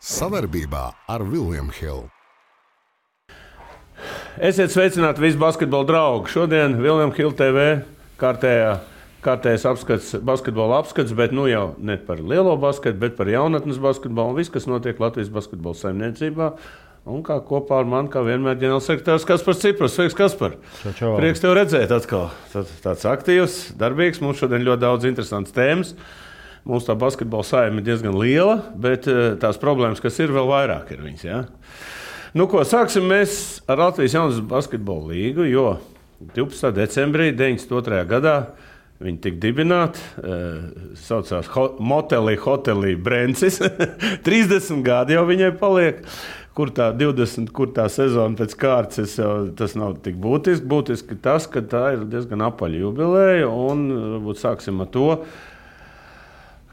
Savarbībā ar William Hill. Esiet sveicināti visi basketbola draugi. Šodien William Hill TV kārtējais apskats, basketbola apskats, bet nu jau ne par lielo basketu, bet par jaunatnes basketbolu un viss, kas notiek Latvijas basketbola saimniecībā. Un kā kopā ar mani, kā vienmēr, ģenerālsekretārs Kaspars Ciprus. Sveiks, Kaspar! Čau. Prieks tev redzēt atkal. Tāds aktīvs, darbīgs. Mums šodien ļoti daudz interesantas tēmas. Mums tā basketbola saime ir diezgan liela, bet tās problēmas, kas ir, vēl vairāk ir viņas. Ja? Nu, ko, sāksim mēs ar Latvijas jaunas basketbola līgu, jo 12. decembrī 92. gadā viņi tika dibināti, saucās Hotelī Brencis. 30 gadi jau viņai paliek. Kur tā 20, kur tā sezona pēc kārtas, tas nav tik būtiski. Būtiski tas, ka tā ir diezgan apaļa jubileja, un varbūt sāksim ar to.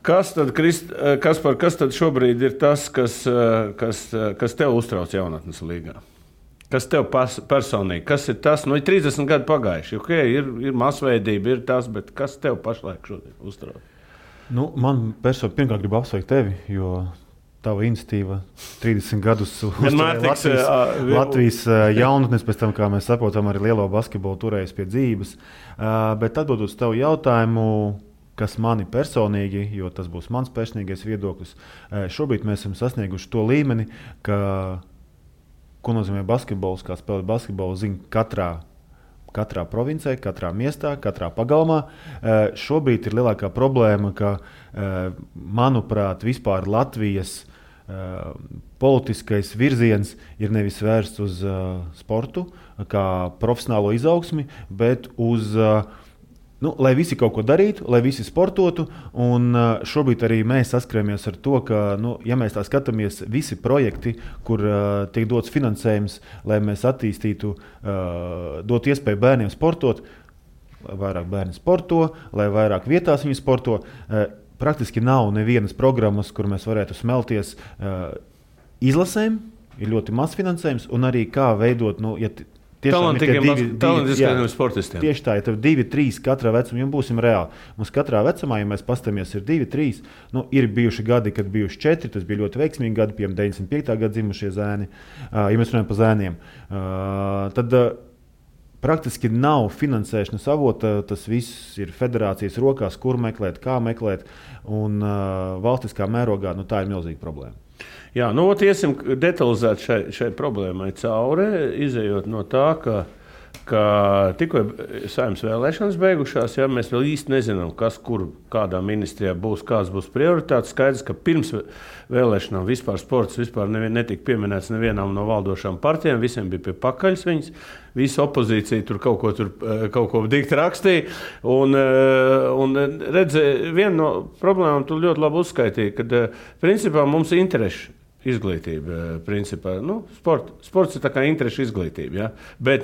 Kas tad šobrīd ir tas, kas tev uztrauc jaunatnes līgā? Kas tev personīgi? Kas ir tas? Nu, ir 30 gadi pagājuši. Okay, ir masveidība, ir tas, bet kas tev pašlaik šodien uztrauc? Nu, man personīgi pirmkārt gribu apsveikt tevi, jo tava iniciatīva 30 gadus uzturēja Latvijas jaunatnes, pēc tam, kā mēs saprotam, arī lielo basketbolu turējis pie dzīves. Bet atbildot uz tavu jautājumu, kas mani personīgi, jo tas būs mans personīgais viedoklis, šobrīd mēs esam sasnieguši to līmeni, ka, ko nozīmē basketbols, kā spēlēt basketbolu, zina katrā provincē, katrā miestā, katrā pagalmā. Šobrīd ir lielākā problēma, ka, manuprāt, vispār Latvijas politiskais virziens ir nevis vērsts uz sportu, kā profesionālo izaugsmi, bet uz lai visi kaut ko darītu, lai visi sportotu, un šobrīd arī mēs saskaramies ar to, ka, ja mēs tā skatāmies, visi projekti, kur tiek dots finansējums, lai mēs attīstītu, dot iespēju bērniem sportot, lai vairāk bērni sporto, lai vairāk vietās viņi sporto, praktiski nav nevienas programmas, kur mēs varētu smelties izlasēm, ir ļoti maz finansējums, un arī kā veidot, talantīgiem sportistiem. Tieši tā, ja tev 2, 3 katrā vecumā, ja būsim reāli. Mums katrā vecumā, ja mēs pastamies, ir 2, 3, ir bijuši gadi, kad bijuši 4, tas bija ļoti veiksmīgi gadi, piemēram, 95. gada dzimušie zēni, ja mēs runājam par zēniem. Tad praktiski nav finansēšanas avota, tas viss ir federācijas rokās, kur meklēt, kā meklēt, un valstiskā mērogā tā ir milzīga problēma. Jā, iesim detalizēt šai problēmai cauri, izejot no tā, ka tikko saimnes vēlēšanas beigušās, ja, mēs vēl īsti nezinām, kas, kur, kādā ministrijā būs, kāds būs prioritāts. Skaidrs, ka pirms vēlēšanām vispār sports netika pieminēts nevienām no valdošām partijām, visiem bija pie pakaļas viņas. Visa opozīcija tur kaut ko dikti rakstīja. Un redzi, viena no problēmām tu ļoti labi uzskaitīji, kad principā mums ir interešu izglītība. Principā, sports ir tā kā interešu izglītība. Ja? Bet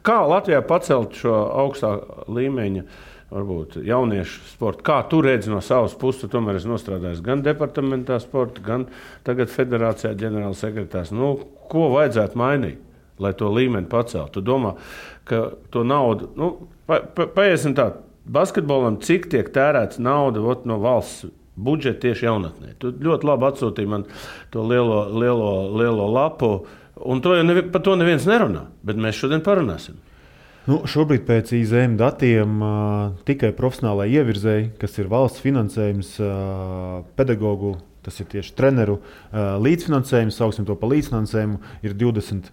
kā Latvijā pacelt šo augstā līmeņa varbūt jauniešu sportu? Kā tu redzi no savas puses? Tomēr es nostrādāju gan departamentā sporta, gan tagad federācijā ģenerālsekretārs. Ko vajadzētu mainīt, lai to līmeni paceltu? Tu domā, ka to naudu, paiesim tā, basketbolam, cik tiek tērēts nauda no valsts budžeta tieši jaunatnē? Tu ļoti labi atsūtīji man to lielo lapu, un par to neviens nerunā, bet mēs šodien parunāsim. Šobrīd pēc IZM datiem tikai profesionālai ievirzēji, kas ir valsts finansējums, pedagogu, tas ir tieši treneru līdzfinansējums, sauksim to par līdzfinansējumu, ir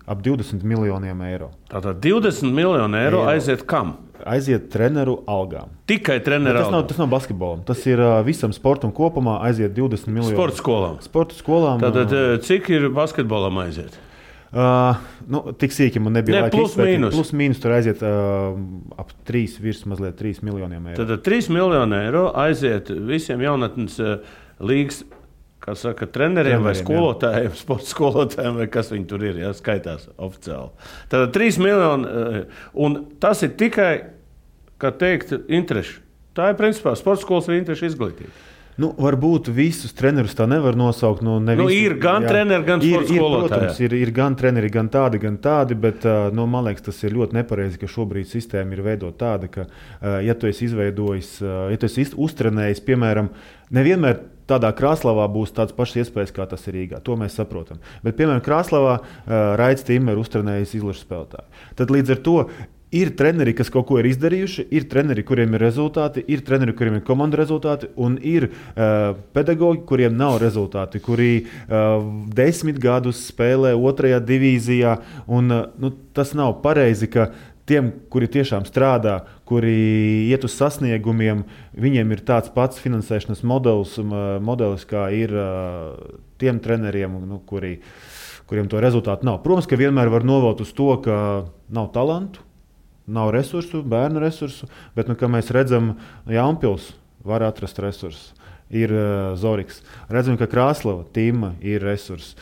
ap 20 miljoniem eiro. Tātad 20 miljoni eiro aiziet kam? Aiziet treneru algām. Tikai treneru algām? Tas nav basketbolam. Tas ir visam sportam kopumā aiziet 20 miljoni. Sporta skolām. Tātad cik ir basketbolam aiziet? Tik sīki man nebija laika izpētīt. Plus mīnus tur aiziet ap 3 miljoniem eiro. Tātad 3 miljoni eiro aiziet visiem jaunatnes līgas, kā saka, treneriem vai skolotājiem, sporta skolotājiem, vai kas viņi tur ir, ja, skaitās oficiāli. Tātad 3 miljoni, un tas ir tikai, kā teikt, interešu. Tā ir principā sporta skolas vai interešu izglītība. Varbūt visus trenerus tā nevar nosaukt. Ir gan treneri, gan sporta skolotāji. Protams, ir gan treneri, gan tādi, bet man liekas, tas ir ļoti nepareizi, ka šobrīd sistēma ir veidota tāda, ka, ja tu esi izveidojis, ja tu esi uztrenējis, piemēram, nevienmēr tādā Krāslavā būs tādas pašas iespējas, kā tas ir Rīgā. To mēs saprotam. Bet, piemēram, Krāslavā Raits Timmer uztrenējis izlašu spēlētāju. Tad līdz ar to ir treneri, kas kaut ko ir izdarījuši, ir treneri, kuriem ir rezultāti, ir treneri, kuriem ir komandu rezultāti, un ir pedagoģi, kuriem nav rezultāti, kuri 10 gadus spēlē 2. divīzijā. Un, tas nav pareizi, ka tiem, kuri tiešām strādā, kuri iet uz sasniegumiem, viņiem ir tāds pats finansēšanas modelis kā ir tiem treneriem, kuriem to rezultātu nav. Protams, ka vienmēr var novelt uz to, ka nav talantu, nav resursu, bērnu resursu, bet, kā mēs redzam, Jaunpils var atrast resursus. Ir Zoriks. Redzam, ka Krāslava, Tima ir resurss.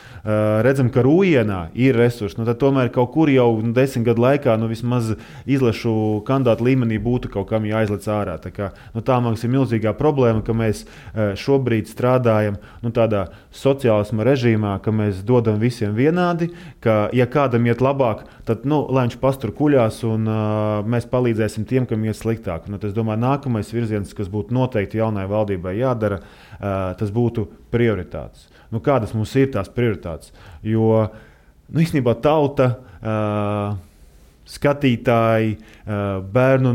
Redzam, ka Rūjienā ir resurss. Tad tomēr kaut kur jau 10 gadu laikā vismaz izlašu kandidātu līmenī būtu kaut kam jāizlec ārā. Tā mums ir milzīgā problēma, ka mēs šobrīd strādājam tādā sociālisma režīmā, ka mēs dodam visiem vienādi, ka ja kādam iet labāk, tad lai viņš pastur kuļās un mēs palīdzēsim tiem, kam iet sliktāk. Es domāju, nākamais virziens, kas būtu noteikti jaunai valdībai jādara, tas būtu prioritātes. Kādas mums ir tās prioritātes? Jo īstenībā tauta, skatītāji, bērnu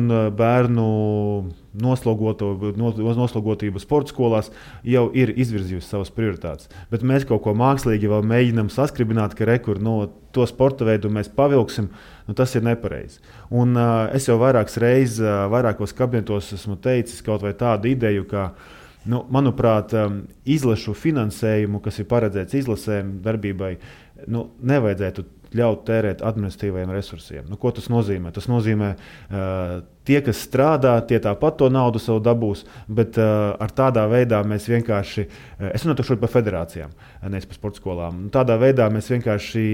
noslogotība sporta skolās jau ir izvirzījusi savas prioritātes. Bet mēs kaut ko mākslīgi vēl mēģinām saskribināt, ka to sporta veidu mēs pavilksim. Tas ir nepareizi. Un es jau vairākas reizes, vairākos kabinetos esmu teicis kaut vai tādu ideju, ka manuprāt, izlašu finansējumu, kas ir paredzēts izlasēm darbībai, nevajadzētu ļaut tērēt administratīvajiem resursiem. Ko tas nozīmē? Tas nozīmē, tie, kas strādā, tie tāpat to naudu savu dabūs, bet ar tādā veidā mēs vienkārši, es runāju šodien par federācijām, nevis par sporta skolām, tādā veidā mēs vienkārši,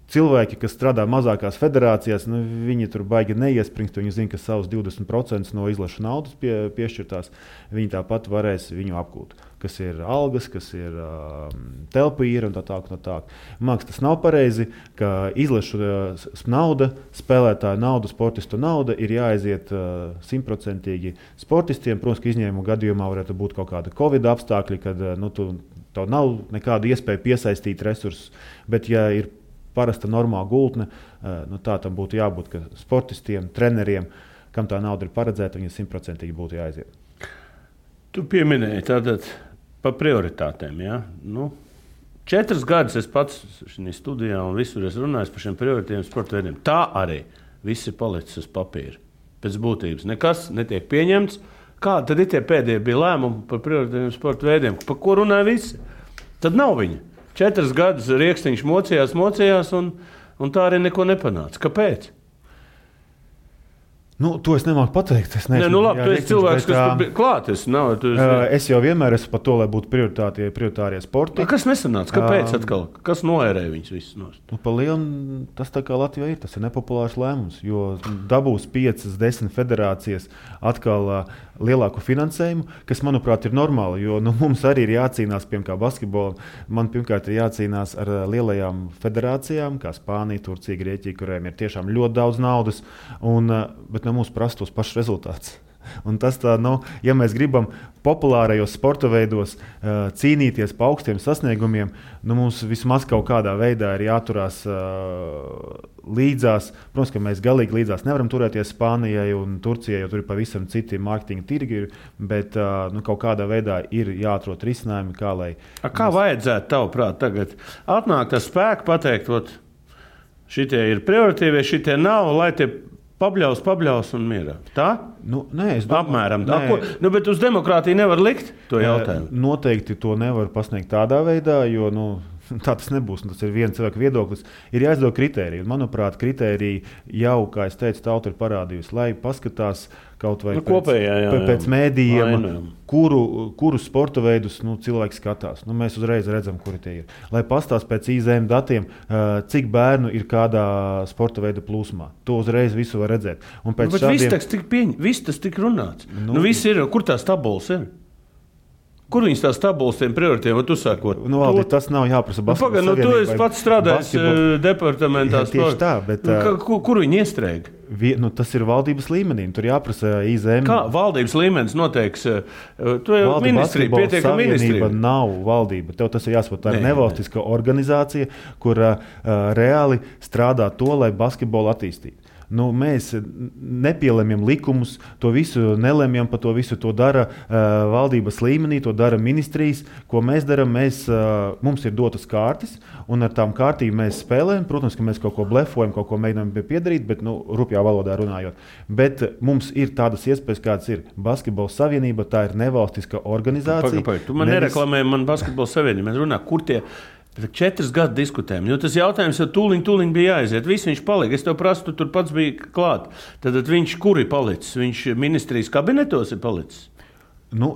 cilvēki, kas strādā mazākās federācijās, viņi tur baigi neiespringst. Viņi zina, ka savus 20% no izlašu naudas piešķirtās. Viņi tāpat varēs viņu apgūt. Kas ir algas, kas ir telpa īra un tā tālāk. Māks, tas nav pareizi, ka izlašu nauda, spēlētāju nauda, sportistu nauda ir jāaiziet 100% sportistiem. Protams, ka izņēmumu gadījumā varētu būt kaut kāda Covid apstākļi, kad tev nav nekāda iespēja piesaistīt resursus. Bet, ja ir parasta normāla gultne, tā tam būtu jābūt, ka sportistiem, treneriem, kam tā nauda ir paredzēta, viņi 100% būtu jāaiziet. Tu pieminēji tātad par prioritātēm. Ja? 4 gadus es pats šajā studijā un visur es runāju par šiem prioritātiem sporta veidiem. Tā arī viss ir palicis uz papīra. Pēc būtības nekas netiek pieņemts. Kādi tad ir tie pēdējie bija lēmumi par prioritātiem sporta veidiem? Par ko runāja visi? Tad nav viņa. 4 gadus Riekstiņš mocījās un tā arī neko nepanāca. Kāpēc? To es nemāku pateikt. Es neesmu, tu esi cilvēks, kas tur bija klāt. Es jau vienmēr esmu par to, lai būtu prioritārie sporti. Kas nesanāca? Kāpēc atkal? Kas noērēja viņus visus nost? Pa lielu tas tā kā Latvijā ir. Tas ir nepopulārs lēmums, jo dabūs 5-10 federācijas atkal lielāku finansējumu, kas, manuprāt, ir normāli, jo mums arī ir jācīnās, piemēram, basketbolam. Man pirmkārt ir jācīnās ar lielajām federācijām, kā Spānija, Turcija, Grieķija, kuriem ir tiešām ļoti daudz naudas, bet mums prasa tos pašus rezultātus. Un tas tā, ja mēs gribam populārajos sporta veidos cīnīties pa augstiem sasniegumiem, mums vismaz kaut kādā veidā ir jāturās līdzās. Protams, ka mēs galīgi līdzās nevaram turēties Spānijai un Turcijai, jo tur ir pavisam citi mārketinga tirgi, bet kaut kādā veidā ir jāatrod risinājumi, Kā vajadzētu tavuprāt tagad atnākt ar spēku pateikt, šitie ir prioritīvie, šitie nav, lai tie pabļaus un mierā. Tā? Nē, es domāju. Apmēram. Bet uz demokrātiju nevar likt to jautājumu? Noteikti to nevar pasniegt tādā veidā, jo tā tas nebūs. Tas ir viens cilvēka viedoklis. Ir jāizdod kritēriji. Manuprāt, kritēriji jau, kā es teicu, tauta ir parādījusi, lai paskatās kaut vai pēc mēdījiem, kuru sporta veidus cilvēki skatās. Mēs uzreiz redzam, kuri tie ir. Lai pastāst pēc IZM datiem, cik bērnu ir kādā sporta veida plūsmā. To uzreiz visu var redzēt. Bet viss tas tik runāts. Viss ir, kur tās tabulas ir? Kur viņas tās tabulas tiem prioritiem, tu sākot? Valdi, tas nav jāprasa basketbola savienībai. Tu esi pats strādājis departamentā. Tieši tā, bet... Kur viņi iestrēg? Tas ir valdības līmenī, tur jāprasa IZM. Kā valdības līmenis noteiks? Tu jau ministrija, pietiekam ministrija. Nav valdība. Tev tas ir jāsaprot. Tā ir nevalstiska organizācija, kur reāli strādā to, lai basketbolu attīstītu. Mēs nepielemjam likumus, to visu nelemjam, pa to visu to dara valdības līmenī, to dara ministrijas. Ko mēs darām, mums ir dotas kārtas, un ar tām kārtīm mēs spēlējam. Protams, ka mēs kaut ko blefojam, kaut ko mēģinām piedarīt, bet rupjā valodā runājot. Bet mums ir tādas iespējas, kādas ir. Basketbola savienība, tā ir nevalstiska organizācija. Tu man nereklamēji man basketbola savienību. Mēs runājam, kur tie... 4 gadu diskutējam, jo tas jautājums jau tūliņ bija jāaiziet. Viss viņš palika. Es tev prasu, tu tur pats biji klāt. Tad viņš kur ir palicis? Viņš ministrijas kabinetos ir palicis?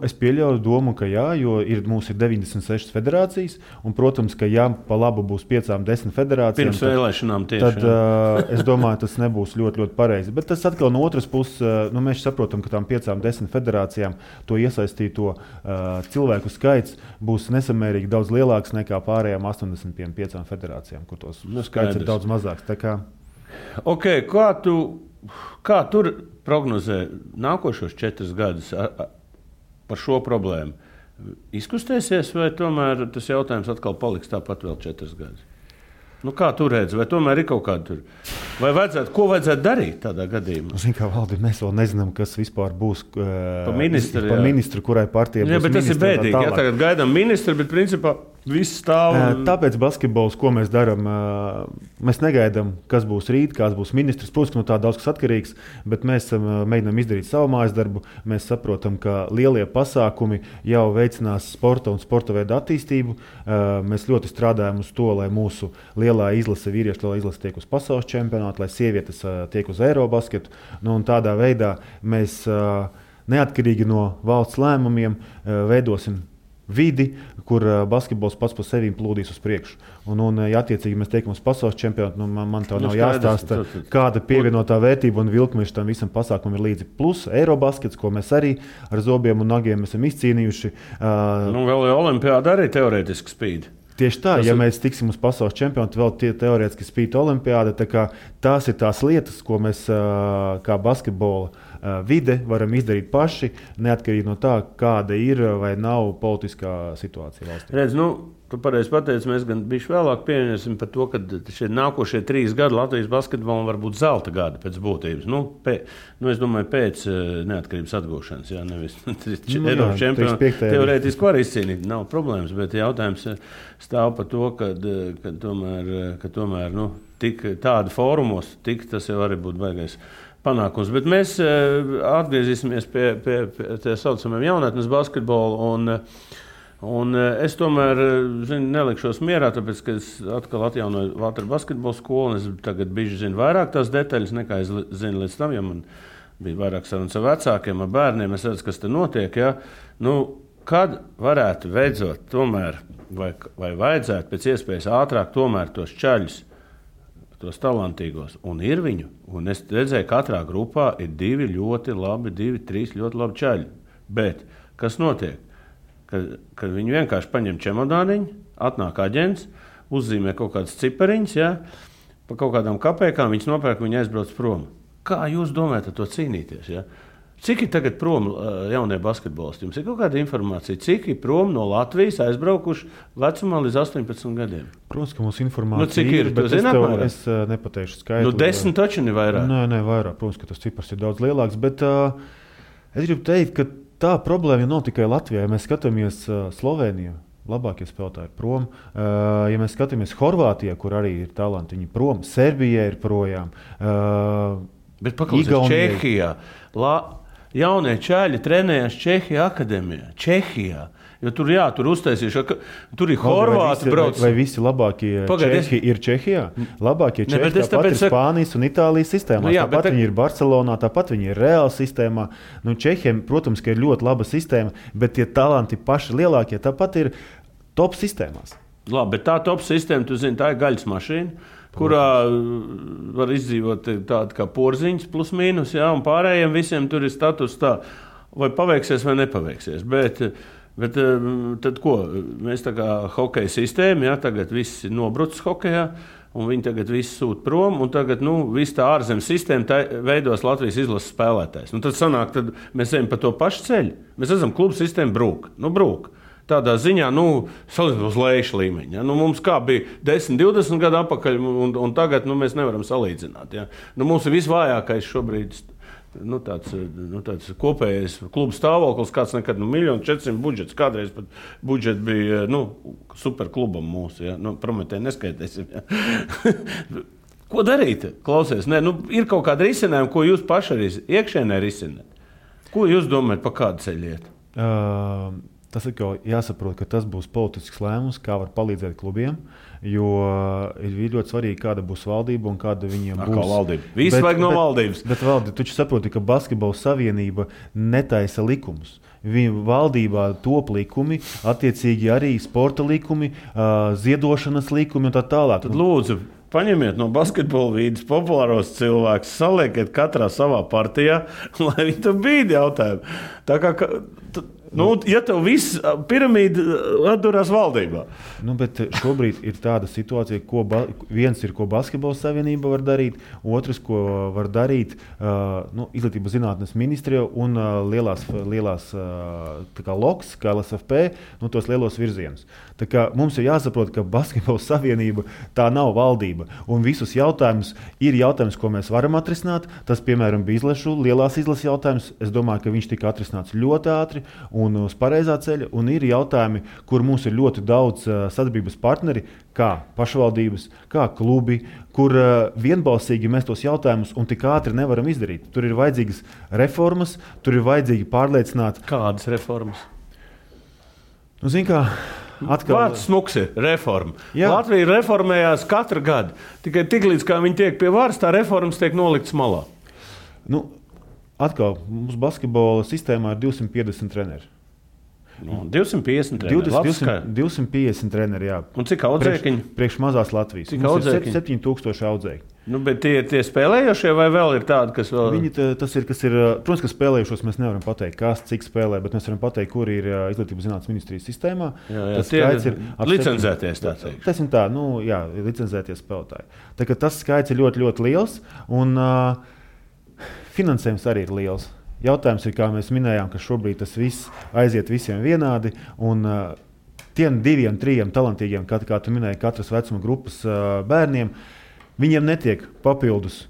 Es pieļauju domu, ka jā, jo mums ir 96 federācijas, un, protams, ka jā, pa labu būs 5-10 federācijām. Pirms vēlēšanām tieši. Tad es domāju, tas nebūs ļoti, ļoti pareizi. Bet tas atkal no otras puses, mēs saprotam, ka tām 5-10 federācijām to iesaistīto cilvēku skaits būs nesamērīgi daudz lielāks nekā pārējām 85 federācijām, kur tos skaits ir daudz mazāks. Okay, kā tur prognozē nākošos 4 gadus? Par šo problēmu izkustēsies, vai tomēr tas jautājums atkal paliks tāpat vēl 4 gadus? Kā tu redzi, vai tomēr ir kaut kāda tur? Vai ko vajadzētu darīt tādā gadījumā? Valdi, mēs vēl nezinām, kas vispār būs pa ministru, kurai partijai būs. Bet tas ir bēdīgi. Jā, tagad gaidām ministru, bet principā viss stāv. Tāpēc basketbols, ko mēs darām, mēs negaidām, kas būs rīt, kāds būs ministrs. Protams, no tā daudz kas atkarīgs, bet mēs mēģinām izdarīt savu mājas darbu. Mēs saprotam, ka lielie pasākumi jau veicinās sporta un sporta veidu attīstību. Mēs ļoti strādājam uz to, lai mūsu lielā izlase, vīriešu lielā izlase tiek uz pasaules čempionātu, lai sievietes tiek uz Eirobasketu. Un tādā veidā mēs neatkarīgi no valsts lēmumiem veidosim vidi, kur basketbols pats par sevi plūdīs uz priekšu. Ja attiecīgi mēs tiekam uz pasaules čempionātu, man tev nav jāstāsta, kāda pievienotā vērtība un vilkmeša tam visam pasākumam ir līdzi. Plus Eirobaskets, ko mēs arī ar zobiem un nagiem esam izcīnījuši. Vēl jau olimpiāda arī teorētiski spīd. Tieši tā, ja mēs tiksim uz pasaules čempionātu, vēl teorētiski spīd olimpiāda, tās ir tās lietas, ko mēs kā basketbola vide varam izdarīt paši, neatkarīgi no tā, kāda ir vai nav politiskā situācija valstī. Redz, tu pareizi pateici, mēs gan bišķi vēlāk pieņemsim par to, ka šie nākošie 3 gadi Latvijas basketbolam var būt zelta gadi pēc būtības. Es domāju, pēc neatkarības atgūšanas, jā, nevis Eiropas čempionu teorētiski var izcīnīt, nav problēmas, bet jautājums stāv par to, ka tomēr tik tādi fórumos, tas jau arī būtu baigais panākums. Bet mēs atgriezīsimies pie tā saucamajiem jaunatnes basketbolu, un es tomēr nelikšos mierā, tāpēc, ka es atkal atjaunoju Valtra basketbola skolu, un es tagad bišķi zinu vairāk tās detaļas, nekā es zinu līdz tam, ja man bija vairāk sarunas ar vecākiem, ar bērniem, es redzu, kas te notiek, ja? Kad varētu beidzot tomēr, vai vajadzētu pēc iespējas ātrāk tomēr tos čaļus, tos talantīgos, un ir viņu, un es redzēju, katrā grupā ir 2 ļoti labi, 2-3 ļoti labi čaļi, bet kas notiek? Kad viņi vienkārši paņem čemodāniņu, atnāk aģents, uzzīmē kaut kādas cipariņas, ja, pa kaut kādām kapēkām, viņas nopērk, viņi aizbrauc prom. Kā jūs domājat ar to cīnīties? Ja? Cik ir tagad prom jaunie basketbolisti? Jums ir kaut kāda informācija, cik ir prom no Latvijas aizbraukuši vecumā līdz 18 gadiem? Protams, ka mums informācija cik ir, bet es nepateikšu skaitli. 10 taču ne vairāk? Nē, vairāk. Protams, ka tas cipars ir daudz lielāks, bet es gribu teikt, ka tā problēma nav tikai Latvijā. Ja mēs skatāmies Sloveniju, labākie spēlētāji ir prom. Ja mēs skatāmies Horvātijā, kur arī ir talanti, viņi prom. Serbijā ir projām. Bet paklausies Čehijā. Jaunie čaļi trenējās Čehijā akadēmijā. Čehijā. Jo tur uztaisījuši, tur ir Horvāti brauc. Vai visi labākie Čehi ir Čehijā? Labākie Čehi tāpat ir Spānijas un Itālijas sistēmā. Tāpat viņi ir Barcelonā, tāpat viņi ir Reāla sistēmā. Čehiem, protams, ka ir ļoti laba sistēma, bet tie talanti paši lielākie tāpat ir top sistēmās. Labi, bet tā top sistēma, tu zini, tā ir gaļas mašīna, kurā var izdzīvot tādu kā porziņas plus mīnus, jā, un pārējiem visiem tur ir status tā, vai paveiksies vai nepaveiksies. Bet Bet tad ko? Mēs tā kā hokeja sistēma, ja, tagad viss ir nobrucis hokejā, un viņi tagad visi sūt prom, un tagad viss tā ārzemju sistēma veidos Latvijas izlases spēlētājs. Tad sanāk, tad mēs ejam pa to pašu ceļu. Mēs redzam, klubu sistēma brūk. Brūk. Tādā ziņā, salīdzinot uz lejušu līmeņa. Ja? Mums kā bija 10, 20 gadu atpakaļ, un tagad mēs nevaram salīdzināt. Ja? Mums ir visvājākais šobrīd tāds kopējais klubu stāvoklis, kāds nekad 1 400 000 budžets. Kādreiz pat budžets bija superklubam mūsu. Ja? Prometēji neskaitēsim. Ja? Ko darīt? Klausies, ir kaut kāda risinājuma, ko jūs paši arī iekšēnē risināt. Ko jūs domājat, pa kādu ceļu iet? Tas ir jāsaprot, ka tas būs politisks lēmums, kā var palīdzēt klubiem, jo ir ļoti svarīgi, kāda būs valdība un kāda viņiem būs. Kā valdība? Viss vajag no valdības. Bet valdība, tu saproti, ka Basketbola savienība netaisa likumus. Viņa valdībā top likumi, attiecīgi arī sporta likumi, ziedošanas likumi un tā tālāk. Tad lūdzu, paņemiet no basketbola vīdes populāros cilvēkus, saliekiet katrā savā partijā, lai viņi tur bīdi jautājumu. Tā kā... ja tev viss piramīda atdurās valdībā. Bet šobrīd ir tāda situācija, viens ir, ko Basketbola savienība var darīt, otrs, ko var darīt Izglītības zinātnes ministrija un lielās LOKS, kā LSFP, tos lielos virzienus. Tā kā mums ir jāsaprot, ka Basketbola savienība tā nav valdība. Un visus jautājumus ir jautājums, ko mēs varam atrisināt. Tas, piemēram, bija lielās izlases jautājums. Es domāju, ka viņš tika atrisināts ļoti ātri un uz pareizā ceļa, un ir jautājumi, kur mums ir ļoti daudz sadarbības partneri, kā pašvaldības, kā klubi, kur vienbalsīgi mēs tos jautājumus un tik ātri nevaram izdarīt. Tur ir vajadzīgas reformas, tur ir vajadzīgi pārliecināt. Kādas reformas? Zini kā, atkal... Vārds smuks ir reforma. Jā. Latvija reformējās katru gadu. Tikai tiklīdz, kā viņi tiek pie varas, tā reformas tiek noliktas malā. Atkal, mums basketbola sistēmā ir 250 treneri. 250 treneri. 250 treneri, jā. Un cik audzēkiņi? Priekš mazās Latvijas. Cik audzēkiņi? 7000 audzēkiņi. Bet tie spēlējošie vai vēl ir tādi, kas vēl... Protams, ka spēlējušos mēs nevaram pateikt, kas cik spēlē, bet mēs varam pateikt, kur ir Izglītības zinātnes ministrijas sistēmā. Tas skaits ir licencēties, tā teikt. Tas ir tā, licencēties spēlētāji. Tā kā tas skaits ir ļoti, ļoti liels, un finansējums arī ir liels. Jautājums ir, kā mēs minējām, ka šobrīd tas viss aiziet visiem vienādi, un tiem 2, 3 talantīgiem, kā tu minēji, katras vecuma grupas bērniem, viņiem netiek papildus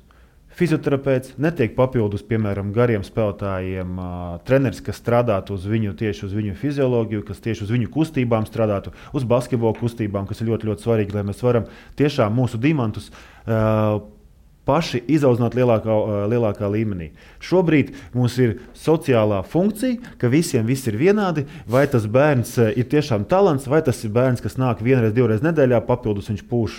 fizioterapeits, netiek papildus, piemēram, gariem spēlētājiem treneris, kas strādātu tieši uz viņu fizioloģiju, kas tieši uz viņu kustībām strādātu, uz basketbola kustībām, kas ir ļoti, ļoti svarīgi, lai mēs varam tiešām mūsu diamantus paši izaudzināt lielākā līmenī. Šobrīd mums ir sociālā funkcija, ka visiem viss ir vienādi, vai tas bērns ir tiešām talants, vai tas ir bērns, kas nāk 1, 2 nedēļā, papildus viņš pūš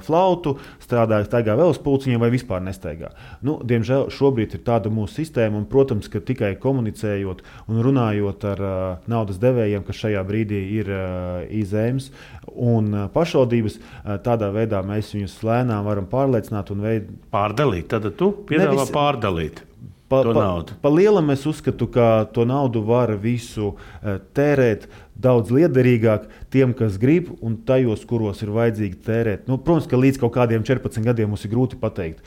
flautu, staigā vēl uz pulciņiem vai vispār nestaigā. Diemžēl šobrīd ir tāda mūsu sistēma, un, protams, ka tikai komunicējot un runājot ar naudas devējiem, kas šajā brīdī ir IZEMS un pašvaldības, tādā veidā mēs viņus lēnām varam pārliecināt un Pārdalīt, tad tu piedāvā pārdalīt to naudu. Pa lielam es uzskatu, ka to naudu var visu tērēt daudz liederīgāk tiem, kas grib, un tajos, kuros ir vajadzīgi tērēt. Protams, ka līdz kaut kādiem 14 gadiem mums ir grūti pateikt,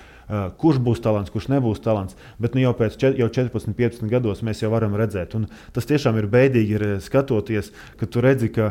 kurš būs talants, kurš nebūs talants, bet jau pēc 14, 15 gados mēs jau varam redzēt. Un tas tiešām ir bēdīgi skatoties, ka tu redzi, ka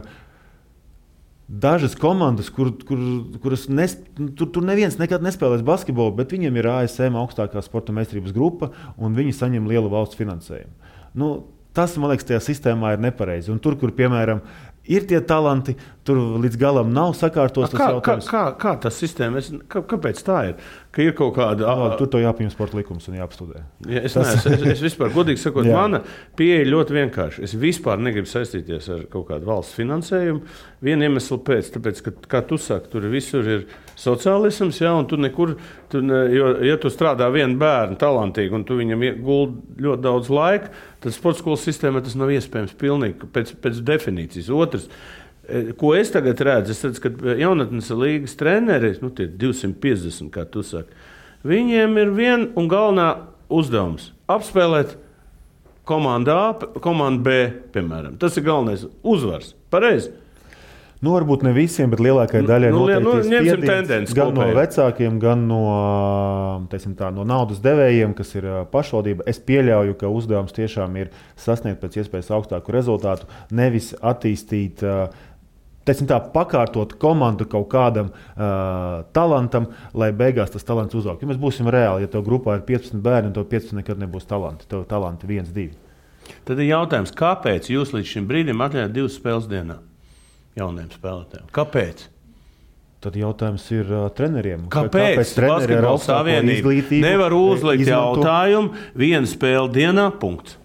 dažas komandas, kuras tur neviens nekad nespēlēs basketbolu, bet viņiem ir ASM augstākā sporta meistarības grupa, un viņi saņem lielu valsts finansējumu. Tas, man liekas, tajā sistēmā ir nepareizi. Un tur, kur, piemēram, ir tie talanti, tur līdz galam nav sakārtos tas jautājums. Kā tas sistēma? Kāpēc tā ir? Ka ir kaut kāda... Tur to jāpieņem sporta likums un jāapstudē. Ja, es vispār, godīgi sakot, mana pieeja ļoti vienkārši. Es vispār negribu saistīties ar kaut kādu valsts finansējumu. Vienu iemeslu pēc, tāpēc, ka, kā tu saki, tur visur ir sociālisms, un tu nekur, ja tu strādā vienu bērnu talantīgi un tu viņam guldi ļoti daudz laika, tad sporta skolas sistēmā tas nav iespējams pilnīgi pēc definīcijas. Otrs, ko es tagad redzu, ka jaunatnes līgas treneri, tie 250, kā tu saki, viņiem ir viena un galvenā uzdevums – apspēlēt komanda A, komanda B, piemēram. Tas ir galvenais uzvars. Pareizi. Nu, varbūt ne visiem, bet lielākai daļai ņemsim tendenci gan no vecākiem, gan no, no naudas devējiem, kas ir pašvaldība. Es pieļauju, ka uzdevums tiešām ir sasniegt pēc iespējas augstāku rezultātu, nevis attīstīt, pakārtot komandu kaut kādam talantam, lai beigās tas talants uzaug. Ja mēs būsim reāli, ja tev grupā ir 15 bērni, un tev 15 nekad nebūs talanti. Tev talanti 1, 2. Tad ir jautājums, kāpēc jūs līdz šim brīdim atļaujat 2 spēles dienā? Jauniem spēlētājiem. Kāpēc? Tad jautājums ir treneriem. Kāpēc Basketbola savienība nevar uzlikt jautājumu 1 spēle dienā, punkts?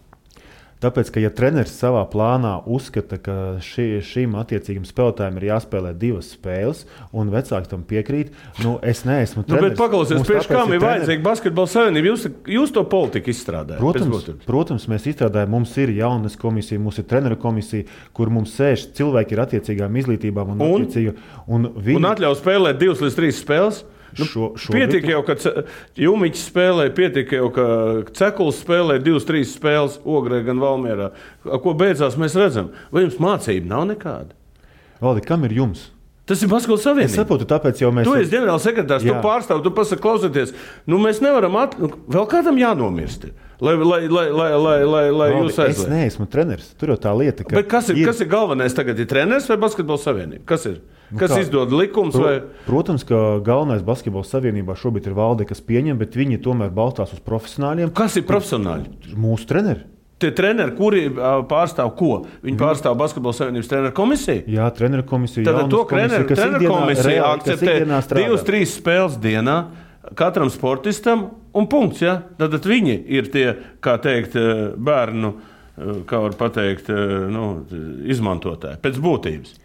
Tāpēc, ka ja treneris savā plānā uzskata, ka šim attiecīgam spēlētājam ir jāspēlē 2 spēles, un vecāki tam piekrīt, es neesmu treneris. Bet paklausies, priekš kam ir vajadzīga Basketbola savienība? Jūs to politiku izstrādājat? Protams, mēs izstrādājam. Mums ir jaunas komisija, mums ir treneru komisija, kur mums sēž cilvēki ar attiecīgām izglītībām. Un atļauj spēlēt 2 līdz 3 spēles? Pietika jau, ka Jumiķis spēlē, pietika jau, ka Cekuls spēlē 2-3 spēles Ogrē gan Valmierā. Ko beidzās mēs redzam? Vai jums mācība nav nekāda? Valdi, kam ir jums? Tas ir Basketbola savienība. Es saprotu, tāpēc jau mēs... Tu esi ģenerālsekretārs, tu pārstāv, tu pasaki, klausieties, mēs nevaram vēl kādam jānomirst. Lai jūs aizliet. Es neesmu treneris. Tur jau tā lieta, ka... Bet kas ir galvenais tagad? Ir treneris vai Basketbola savienība? Kas ir? Kas izdod likums? Protams, ka galvenais Basketbola savienībā šobrīd ir valde, kas pieņem, bet viņi tomēr balstās uz profesionāļiem. Kas ir profesionāļi? Mūsu treneri. Tie treneri, kuri pārstāv ko? Viņi pārstāv Basketbola savienības treneru komisiju? Jā, treneru komisiju. Tad to treneru komisiju akceptē 2-3 spēles dienā katram sportistam un punkts. Ja? Tad viņi ir tie, kā teikt, bērnu, kā var pateikt, izmantotāji pēc būtības.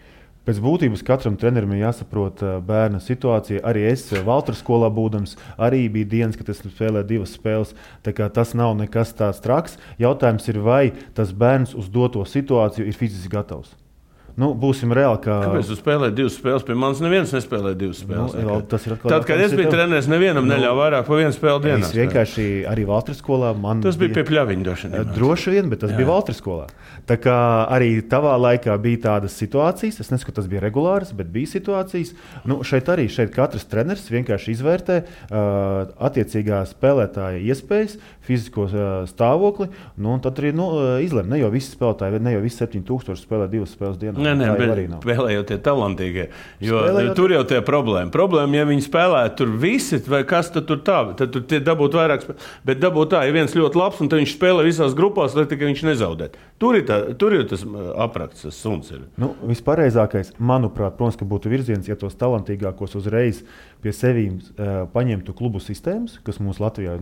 Pēc būtības katram trenerim ir jāsaprot bērna situācija. Arī es Valtras skolā būdams, arī bija dienas, kad es spēlēju 2 spēles. Tā kā tas nav nekas tāds traks. Jautājums ir, vai tas bērns uz doto situāciju ir fiziski gatavs. Būsim reāli, ka... Kāpēc tu spēlēji 2 spēles? Pie manis neviens nespēlēja 2 spēles. Tad, kad es biju treneris, nevienam neļauj vairāk pa 1 spēli dienā. Es vienkārši arī Valtras skolā... Tas bija pie pļaviņa droši vien, bet tas bija Valtras skolā. Tā kā arī tavā laikā bija tādas situācijas, es nesaku, ka tas bija regulāras, bet bija situācijas. Šeit katrs treneris vienkārši izvērtē attiecīgā spēlētāja iespējas, fizisko stāvokli, un tad arī izlem. Ne jau visi spēlētāji, ne jau visi 7000 spēlē 2 spēles dienā. Nē, bet spēlējot tie talantīgie. Jo tur jau tie problēma. Problēma, ja viņi spēlētu tur visi, vai kas tad tur tā, tad tur tie dabūt vairāk spēlēt. Bet dabūt tā, ja viens ļoti labs, un tad viņš spēlē visās grupās, lai tikai viņš nezaudētu. Tur ir tas aprakts, tas suns ir. Vispareizākais, manuprāt, protams, ka būtu virziens, ja tos talantīgākos uzreiz pie sevīm paņemtu klubu sistēmas, kas mums Latvijā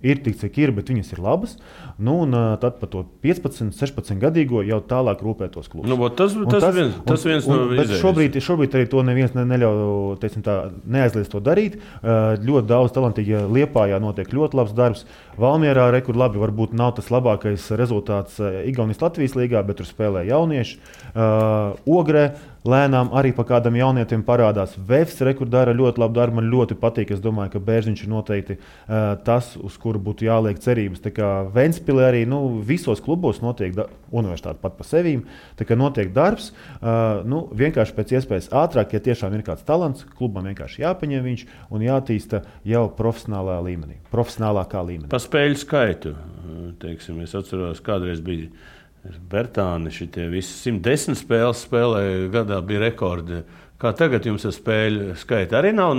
ir tik, cik ir, bet viņas ir labas. Tad par to 15, 16 gadīgo jau tālāk rūpētos klubus. Tas viens no izējas. Šobrīd arī to neviens neļauj, neaizliedz to darīt. Ļoti daudz talantīgi Liepājā notiek ļoti labs darbs. Valmierā labi, varbūt nav tas labākais rezultāts Igaunijas Latvijas līgā, bet tur spēlē jaunieši. Ogrē lēnām arī pa kādam jaunietim parādās. Vefs dara ļoti labu darbu, man ļoti patīk. Es domāju, ka Bērziņš ir noteikti tas, uz kuru būtu jāliek cerības. Tā kā Ventspilī arī visos klubos notiek universitāte pat pa sevīm. Tā kā notiek darbs, vienkārši pēc iespējas ātrāk, ja tiešām ir kāds talants, klubam vienkārši jāpaņem viņš un jātīsta jau profesionālā līmenī, profesionālākā līmenī. Pa spēļu skaitu, teiksim, es atceros, kādreiz bija Bertāni, šitie visi 110 spēles spēlēja, gadā bija rekordi. Kā tagad jums ar spēļu skaitu? Arī nav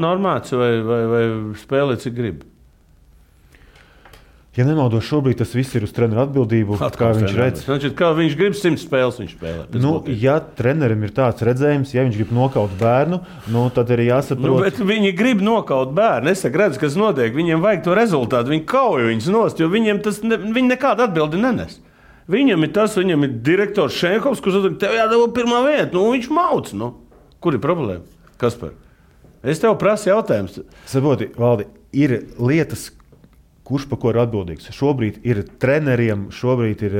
normāts vai spēlē, cik grib? Ja nemaldos, šobrīd tas viss ir uz treneru atbildību, kā viņš redz. Kā viņš grib 100 spēles, viņš spēlē. Ja trenerim ir tāds redzējums, ja viņš grib nokaut bērnu, tad arī jāsaprot. Bet viņi grib nokaut bērnu. Es redzu, kas notiek. Viņiem vajag to rezultātu. Viņi kauj viņus nost, jo viņiem viņi nekādu atbildi nenes. Viņam ir direktors Šenkovs, kurš saka, tev jādabū pirmā vieta. Viņš mauc. Kur ir problēma? Kaspar? Es tev prasu jautājums. Saproti, Valdi, ir lietas, kurš par ko ir atbildīgs. Šobrīd ir treneriem, šobrīd ir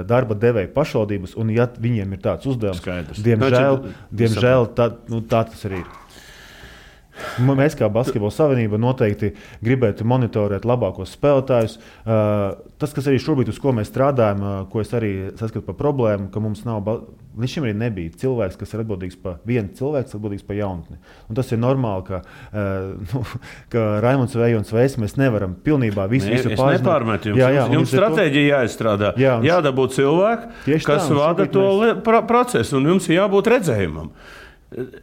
darba devēja pašvaldības, un ja viņiem ir tāds uzdevums, diemžēl tā tas arī ir. Mēs kā Basketbola savienība noteikti gribētu monitorēt labākos spēlētājus. Tas, kas arī šobrīd, uz ko mēs strādājam, ko es arī saskatu par problēmu, ka mums nav, līdz šim arī nebija cilvēks, kas ir atbildīgs par vienu cilvēku, atbildīgs par jaunatni. Un tas ir normāli, ka Raimonds vai Ejons Veiss mēs nevaram pilnībā visu pārzināt. Es nepārmetu jums. Jums stratēģija jāizstrādā. Jādabū cilvēki, kas vada to procesu, un jums ir jābūt redzējumam.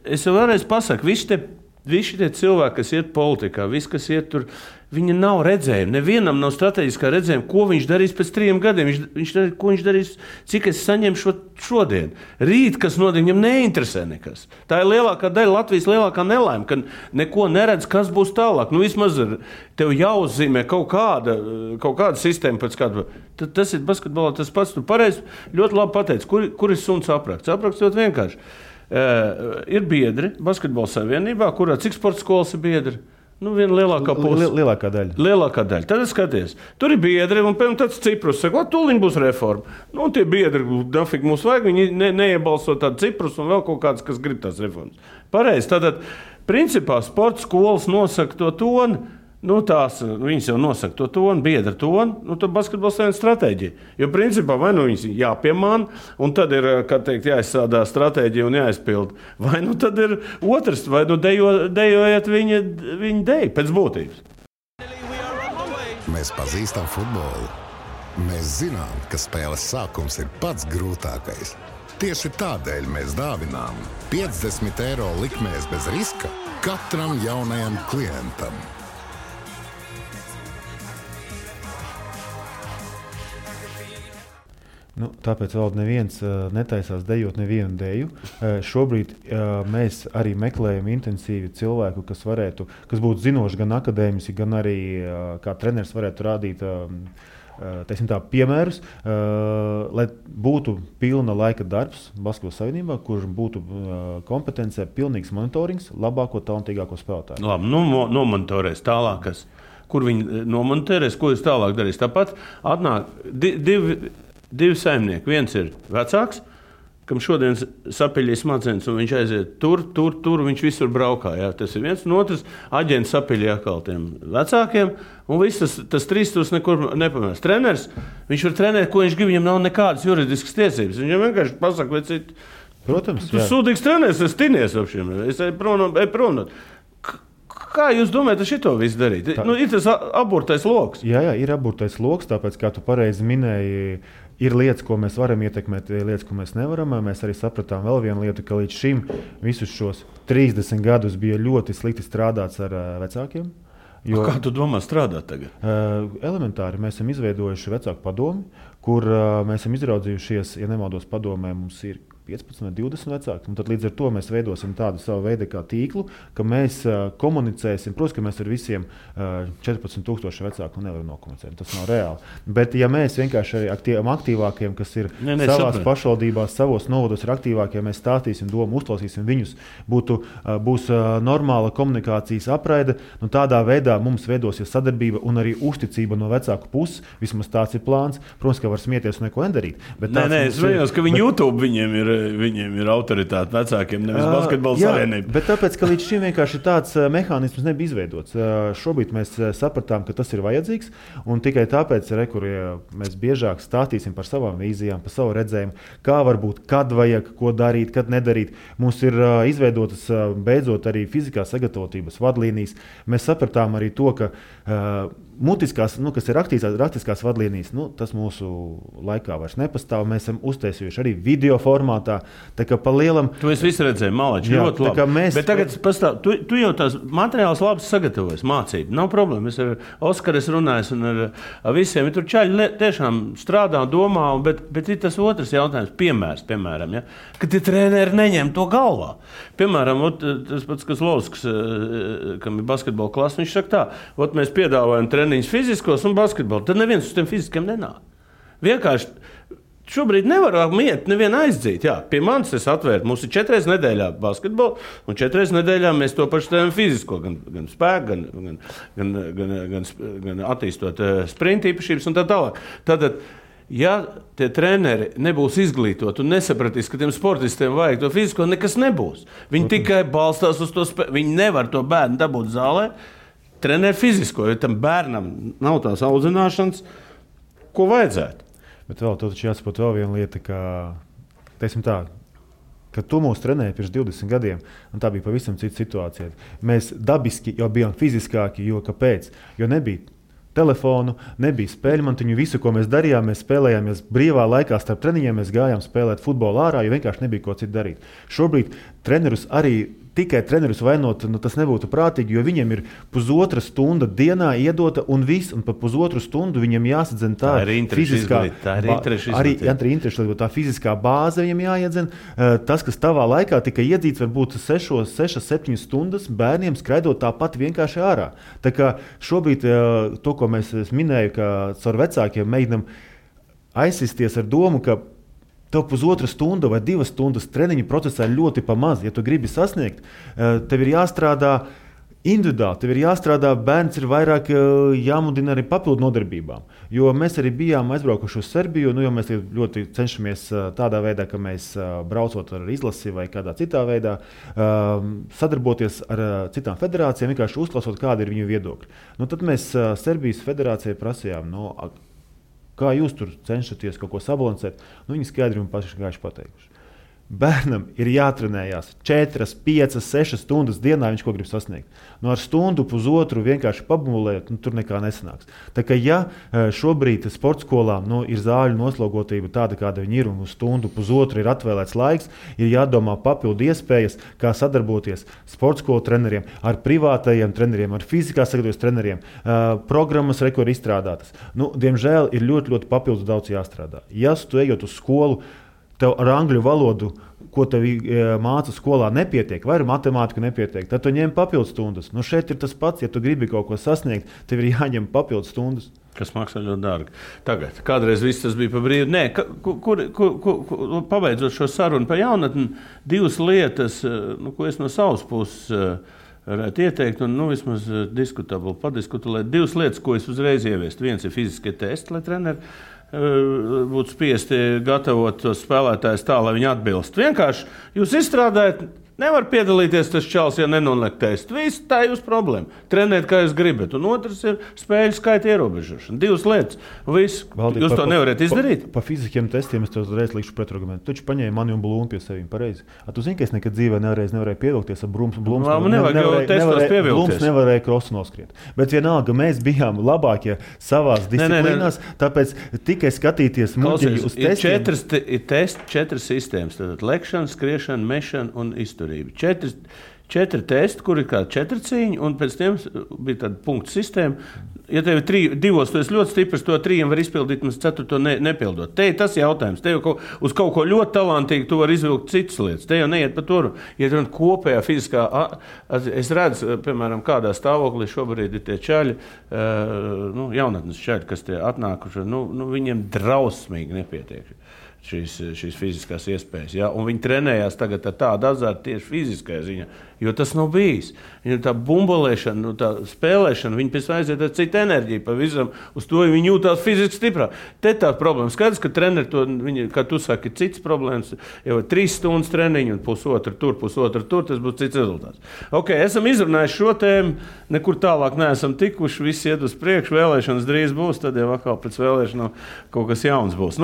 Es vēlreiz pasaku, visi tie cilvēki, kas iet politikā, visi, kas iet tur, viņi nav redzējumi. Nevienam nav strateģiskā redzējuma, ko viņš darīs pēc 3 gadiem. Ko viņš darīs, cik es saņemšu šodien. Rīt, kas notiek, viņam neinteresē nekas. Tā ir lielākā daļa Latvijas lielākā nelaime, ka neko neredz, kas būs tālāk. Vismaz tev jāuzzīmē kaut kāda sistēma pēc kāda. Tas ir basketbolā tas pats. Tu pareizi ļoti labi pateici, kur ir suns apraksts. Apraksts ļoti vienkārši. Ir biedri Basketbola savienībā, kurā cik sporta skolas ir biedri? Viena lielākā puse. Lielākā daļa. Lielākā daļa. Tad skaties, tur ir biedri, un pēc tāds Ciprus saka, tūliņ būs reforma. Tie biedri, dafīgi mums vajag, viņi neiebalso tādu Ciprus un vēl kaut kāds, kas grib tās reformas. Pareizi, tātad, principā, sporta skolas nosaka to toni, viņas jau nosaka to toni, biedra toni, tad basketbola savienības stratēģija. Jo principā vai viņas jāpiemāna, un tad ir, kā teikt, jāizsādā stratēģija un jāizpild. Vai tad ir otrs, vai dejojiet viņa deju pēc būtības. Mēs pazīstam futbolu. Mēs zinām, ka spēles sākums ir pats grūtākais. Tieši tādēļ mēs dāvinām 50 eiro likmēs bez riska katram jaunajam klientam. Tāpēc vēl neviens netaisās dejot nevienu deju. Šobrīd mēs arī meklējam intensīvi cilvēku, kas būtu zinoši gan akadēmiski, gan arī kā treneris varētu rādīt piemērus, lai būtu pilna laika darbs Basketbola savienībā, kur būtu kompetencē pilnīgs monitorings labāko, talantīgāko spēlētāju. Labi, nomonitorēs tālākas. Kur viņi nomonitorēs, ko jūs tālāk darīs? Tāpat atnāk divi saimnieki. Viens ir vecāks, kam šodien sapeļīs smadzenes, un viņš aiziet tur, viņš visur braukā. Jā. Tas ir viens, un otrs aģents sapeļī atkal tiem vecākiem, un viss tas trīstos nekur nepamēs. Treneris, viņš var trenēt, ko viņš grib, viņam nav nekādas juridiskas tiesības. Viņam vienkārši pasaka, vai citu. Protams, tu sūdīgs treneris, es tinies ap šiem. Es eju prom. Kā jūs domājat, šito visu darīt? Ir tas aburtais loks. Jā, ir aburtais loks, tāpēc, kā tu pareizi minēji, ir lietas, ko mēs varam ietekmēt, lietas, ko mēs nevaram. Mēs arī sapratām vēl vienu lietu, ka līdz šim visus šos 30 gadus bija ļoti slikti strādāts ar vecākiem. Kā tu domā strādāt tagad? Elementāri mēs esam izveidojuši vecāku padomi, kur mēs esam izraudzījušies, ja nemaldos padomē, mums ir 15 vai 20 vecāki. Tad līdz ar to mēs veidosim tādu savu veidu kā tīklu, ka mēs komunicēsim. Protams, ka mēs ar visiem 14,000 vecāku nevaram nokomunicēt. Tas nav reāli. Bet ja mēs vienkārši arī tiem aktīvākiem, kas ir savās pašvaldībās, savos novados ir aktīvākie, mēs stāstīsim domu, uzklausīsim viņus, būs normāla komunikācijas apraide, tādā veidā mums veidosies sadarbība un arī uzticība no vecāku puses. Vismaz tāds ir plāns. Protams, ka var smieties un neko nedarīt. Es vienos, ka viņi YouTube viņiem ir autoritāte vecākiem, nevis Basketbola savienība. Bet tāpēc, ka līdz šim vienkārši tāds mehānisms nebija izveidots. Šobrīd mēs sapratām, ka tas ir vajadzīgs, un tikai tāpēc, mēs biežāk stāstīsim par savām vīzijām, par savu redzējumu, kā varbūt, kad vajag, ko darīt, kad nedarīt. Mums ir izveidotas beidzot arī fizikā sagatavotības vadlīnijas. Mēs sapratām arī to, ka mutiskās, kas ir raktiskās vadlīnijas, tas mūsu laikā vairs nepastāv. Mēs esam uztaisījuši arī video formātā. Tā kā pa lielam... Tu esi visu redzēji, malači, ļoti labi. Bet tagad pastāv, tu jau tās materiāls labi sagatavojas, mācību. Nav problēma. Es ar Oskaru runāju un ar visiem. Tur čaļi tiešām strādā, domā, bet ir tas otrs jautājums. Piemēram, ja? Kad tie treneri neņem to galvā. Piemēram, tas pats, kas Lovsks, kam ir basketbola klasa, viņš saka tā, mēs piedāvājam treniņus fiziskos un basketbolu. Tad neviens uz tiem fiziskiem nenāk. Vienkārši šobrīd nevar miet nevienu aizdzīt. Jā, pie manis es atvēru. Mums ir 4 nedēļā basketbolu, un 4 nedēļā mēs to pašu tēmu fizisko, gan spēku, gan attīstot sprinta īpašības un tā tālāk. Tātad ja tie treneri nebūs izglītoti un nesapratīs, ka tiem sportistiem vajag to fizisko, nekas nebūs. Viņi tikai balstās uz to spēku. Viņi nevar to bērnu dabūt zālē, trenēt fizisko, jo tam bērnam nav tās audzināšanas, ko vajadzētu. Bet vēl taču jāsaprot vēl viena lieta, ka, teiksim tā, kad tu mūs trenēji pirms 20 gadiem, un tā bija pavisam cita situācija. Mēs dabiski jau bijām fiziskāki, jo kāpēc? Jo nebija telefonu, nebija spēļmantiņu, visu, ko mēs darījām, mēs spēlējāmies brīvā laikā starp treniņiem, mēs gājām spēlēt futbolu ārā, jo vienkārši nebija ko citu darīt. Šobrīd tikai trenerus vainot, tas nebūtu prātīgi, jo viņiem ir pusotra stunda dienā iedota un viss, un pa pusotru stundu viņiem jāsadzen tā fiziskā, tā fiziskā bāze viņiem jāiedzen. Tas, kas tavā laikā tika iedzīts, varbūt 6-7 stundas bērniem skraidot tāpat vienkārši ārā. Tā kā šobrīd to, ko mēs minēju, ka caur vecākiem mēģinam aizsisties ar domu, ka tev pusotra stunda vai 2 stundas treniņu procesā ir ļoti pamaz. Ja tu gribi sasniegt, tev ir jāstrādā individuāli, tev ir jāstrādā, bērns ir vairāk jāmudina arī papildu nodarbībām. Jo mēs arī bijām aizbraukuši uz Serbiju, jo mēs ļoti cenšamies tādā veidā, ka mēs braucot ar izlasi vai kādā citā veidā, sadarboties ar citām federācijām, vienkārši uzklausot, kāda ir viņu viedokļi. Tad mēs Serbijas federācijai prasījām, kā jūs tur cenšaties kaut ko sabalansēt, viņi skaidri un paši pateikuši. Bērnam ir jātrenējās 4, 5, 6 stundas dienā, viņš ko grib sasniegt. Ar stundu, pusotru vienkārši pabumulēt, tur nekā nesanāks. Tā kā ja šobrīd sporta skolām ir zāļu noslogotība tāda, kāda viņi ir, un uz stundu, pusotru ir atvēlēts laiks, ir jādomā papildu iespējas, kā sadarboties sporta skolu treneriem, ar privātajiem treneriem, ar fizikā sagatavojas treneriem, programmas ir izstrādātas. Diemžēl ir ļoti, ļoti papildus daudz jāstrādā. Ja tu ejot uz skolu, tev ar angļu valodu, ko tev māca skolā, nepietiek, vai ar matemātiku nepietiek, tad tu ņem papildus stundas. Šeit ir tas pats, ja tu gribi kaut ko sasniegt, tev ir jāņem papildus stundas. Kas maksā ļoti dārgi. Tagad, kādreiz viss tas bija pa brīvu. Nē, pabeidzot šo sarunu par jaunatni, 2 lietas, ko es no savas puses varētu ieteikt, un vismaz padiskutēt. 2 lietas, ko es uzreiz ieviestu. Viens ir fiziskie testi, lai treneri būtu spiesti gatavot tos spēlētājus tā, lai viņi atbilst. Vienkārši jūs izstrādājat, nevar piedalīties tas čals, ja nenoliek testu. Viss tā ir jūsu problēma. Trenēt, kā jūs gribat. Un otrs ir spēļu skaita ierobežošana. 2 lietas. Viss. Jūs to nevarat izdarīt? Pa fiziskiem testiem es to uzreiz likšu pretargumentu. Taču paņēma mani un Blūmu pie sevīm pareizi. Tu zini, ka es nekad dzīvē nevarēju pievilkties ar Blūms nevarēja krosu noskriet. Bet vienalga, mēs bijām labākie savās disciplīnās, tāpēc tikai skatīties muļķi uz testiem. 4 sistēmas. Tātad lekšana, skriešana, mešana un izturība. 4 testi, kur ir kā 4 cīņi, un pēc tiem bija tāda punktu sistēma. Ja tev ir 2, tu esi ļoti stiprs, to 3 var izpildīt, un 4 nepildot. Te ir tas jautājums. Te jau uz kaut ko ļoti talantīgu tu vari izvilkt citas lietas. Te jau neiet pa tur. Ja tu kopējā fiziskā, es redzu, piemēram, kādā stāvoklī šobrīd ir tie čaļi, jaunatnes čaļi, kas tie atnākuši, viņiem drausmīgi nepietiek šīs fiziskās iespējas. Ja? Un viņi trenējās tagad ar tādu azartu tieši fiziskajā ziņā, jo tas nav bijis. Viņam tā bumbolēšana, tā spēlēšana, viņi pēc aiziet ar citu enerģiju pavisam, uz to viņi jūtās fiziski stiprāk. Te tā problēma. Skaidrs, ka treneri to, kā tu saki, ir cits problēmas, jau 3 stundas treniņu un pusotru tur, tas būs cits rezultāts. Ok, esam izrunājuši šo tēmu, nekur tālāk neesam tikuši, viss iet uz priekšu, vēlēšanas drīz būs, tad jau atkal pēc vēlēšanām kaut kas jauns būs.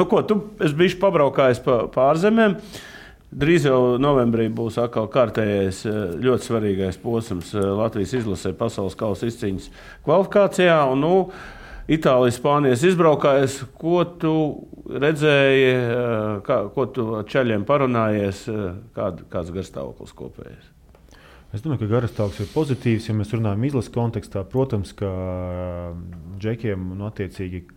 Es bijuši pabraukājis pa ārzemēm. Drīz jau novembrī būs atkal kārtējais ļoti svarīgais posms Latvijas izlasē pasaules kausa izcīņas kvalifikācijā. Un, Itālijas, Spānijas izbraukājies. Ko tu redzēji, ko tu čaļiem parunājies, kāds garstāvoklis kopējais? Es domāju, ka garstāvoklis ir pozitīvs, ja mēs runājam izlases kontekstā. Protams, ka džekiem attiecīgi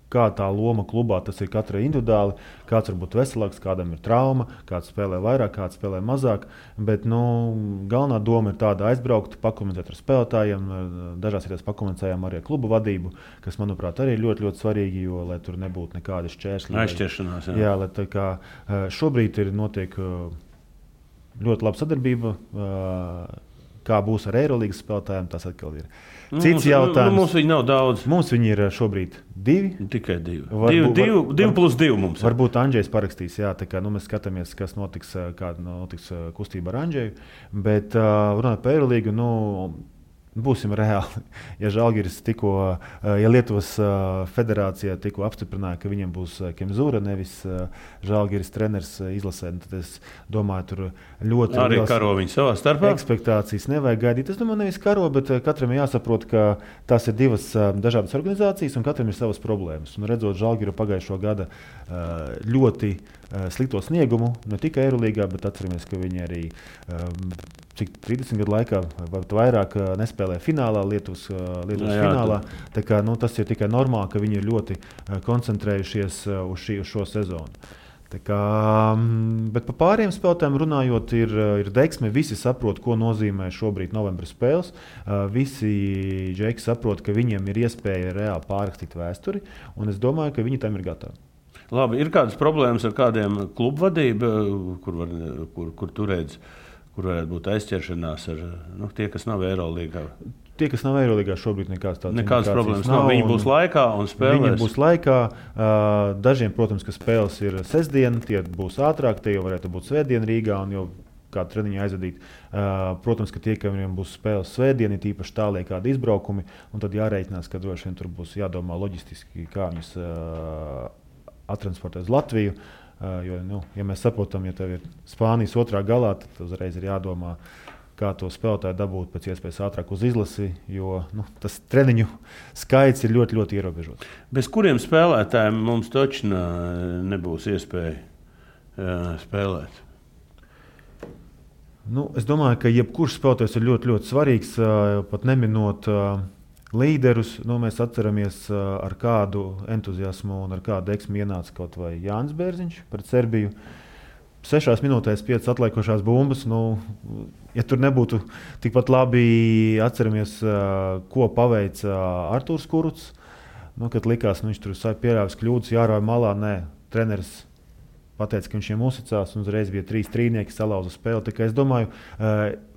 kā tā loma klubā, tas ir katrai individuāli. Kāds var būt veselāks, kādam ir trauma, kāds spēlē vairāk, kāds spēlē mazāk. Bet galvenā doma ir tāda aizbraukt, pakomunicēt ar spēlētājiem. Dažās vietās pakomunicējām arī ar klubu vadību, kas, manuprāt, arī ir ļoti, ļoti svarīgi, jo, lai tur nebūtu nekādi šķēršļi. Aizķeršanās, jā. Jā, lai tā kā šobrīd notiek ļoti laba sadarbība. Kā būs ar Eirolīgas spēlētājiem, tas atkal ir cits jautājums. Mums viņi nav daudz. Mums viņi ir šobrīd 2. Tikai 2. 2 plus 2 mums. Varbūt Andžejs parakstīs, jā, tā kā mēs skatāmies, kas notiks, kāda notiks kustība ar Andžeju. Bet runājot par Eirolīgu, būsim reāli. Ja Žalgiris ja Lietuvas federācija tikko apstiprināja, ka viņiem būs Kemzūra, nevis Žalgiris treneris izlasē, tad es domāju, tur ļoti arī karo viņi savā starpā. Ekspektācijas nevajag gaidīt. Es domāju, nevis karo, bet katram ir jāsaprot, ka tās ir divas dažādas organizācijas un katram ir savas problēmas. Un redzot Žalgiru pagājušo gada ļoti slikto sniegumu, ne tikai Eirolīgā, bet atceramies, ka viņi arī 30 gadu laikā vai vairāk nespēlē finālā, Lietuvas finālā. Tā kā, tas ir tikai normāli, ka viņi ir ļoti koncentrējušies uz šo sezonu. Tā kā, bet par pāriem spēlētājiem runājot, ir deksme. Visi saprot, ko nozīmē šobrīd novembra spēles. Visi džeki saprot, ka viņiem ir iespēja reāli pārrakstīt vēsturi, un es domāju, ka viņi tam ir gatavi. Labi, ir kādas problēmas ar kādiem klubu vadību, kur tu redzi? Kur varētu būt aizķeršanās ar tie, kas nav Eirolīgā? Tie, kas nav Eirolīgā, šobrīd nekādas problēmas nav. Viņi būs laikā un spēlēs. Viņi būs laikā. Dažiem, protams, ka spēles ir sestdien, tie būs ātrāk, tie jau varētu būt svētdien Rīgā un jau kādu treniņu aizvadīt. Protams, ka tie, kam būs spēles svētdien, ir īpaši tālie kādi izbraukumi, un tad jārēķinās, ka droši vien tur būs jādomā loģistiski, kā viņus attransportēt uz Latviju. Jo, ja mēs saprotam, ja tev ir Spānijas otrā galā, tad uzreiz ir jādomā, kā to spēlētāju dabūt pēc iespējas ātrāk uz izlasi, jo tas treniņu skaits ir ļoti, ļoti ierobežots. Bez kuriem spēlētājiem mums taču nebūs iespēja spēlēt? Es domāju, ka jebkurš spēlētājs ir ļoti, ļoti svarīgs, pat neminot līderus. Mēs atceramies, ar kādu entuziasmu un ar kādu deksmi ienāca kaut vai Jānis Bērziņš pret Serbiju. 6 minūtēs 5 atliekošās bumbas. Ja tur nebūtu tikpat labi, atceramies, ko paveica Artūrs Kurucs. Kad likās, viņš tur pieļāvis kļūdas, jārauj malā. Nē, treneris pateica, ka viņš viņiem uzticās, un uzreiz bija 3 trīnieki, salauza spēli. Tā kā es domāju,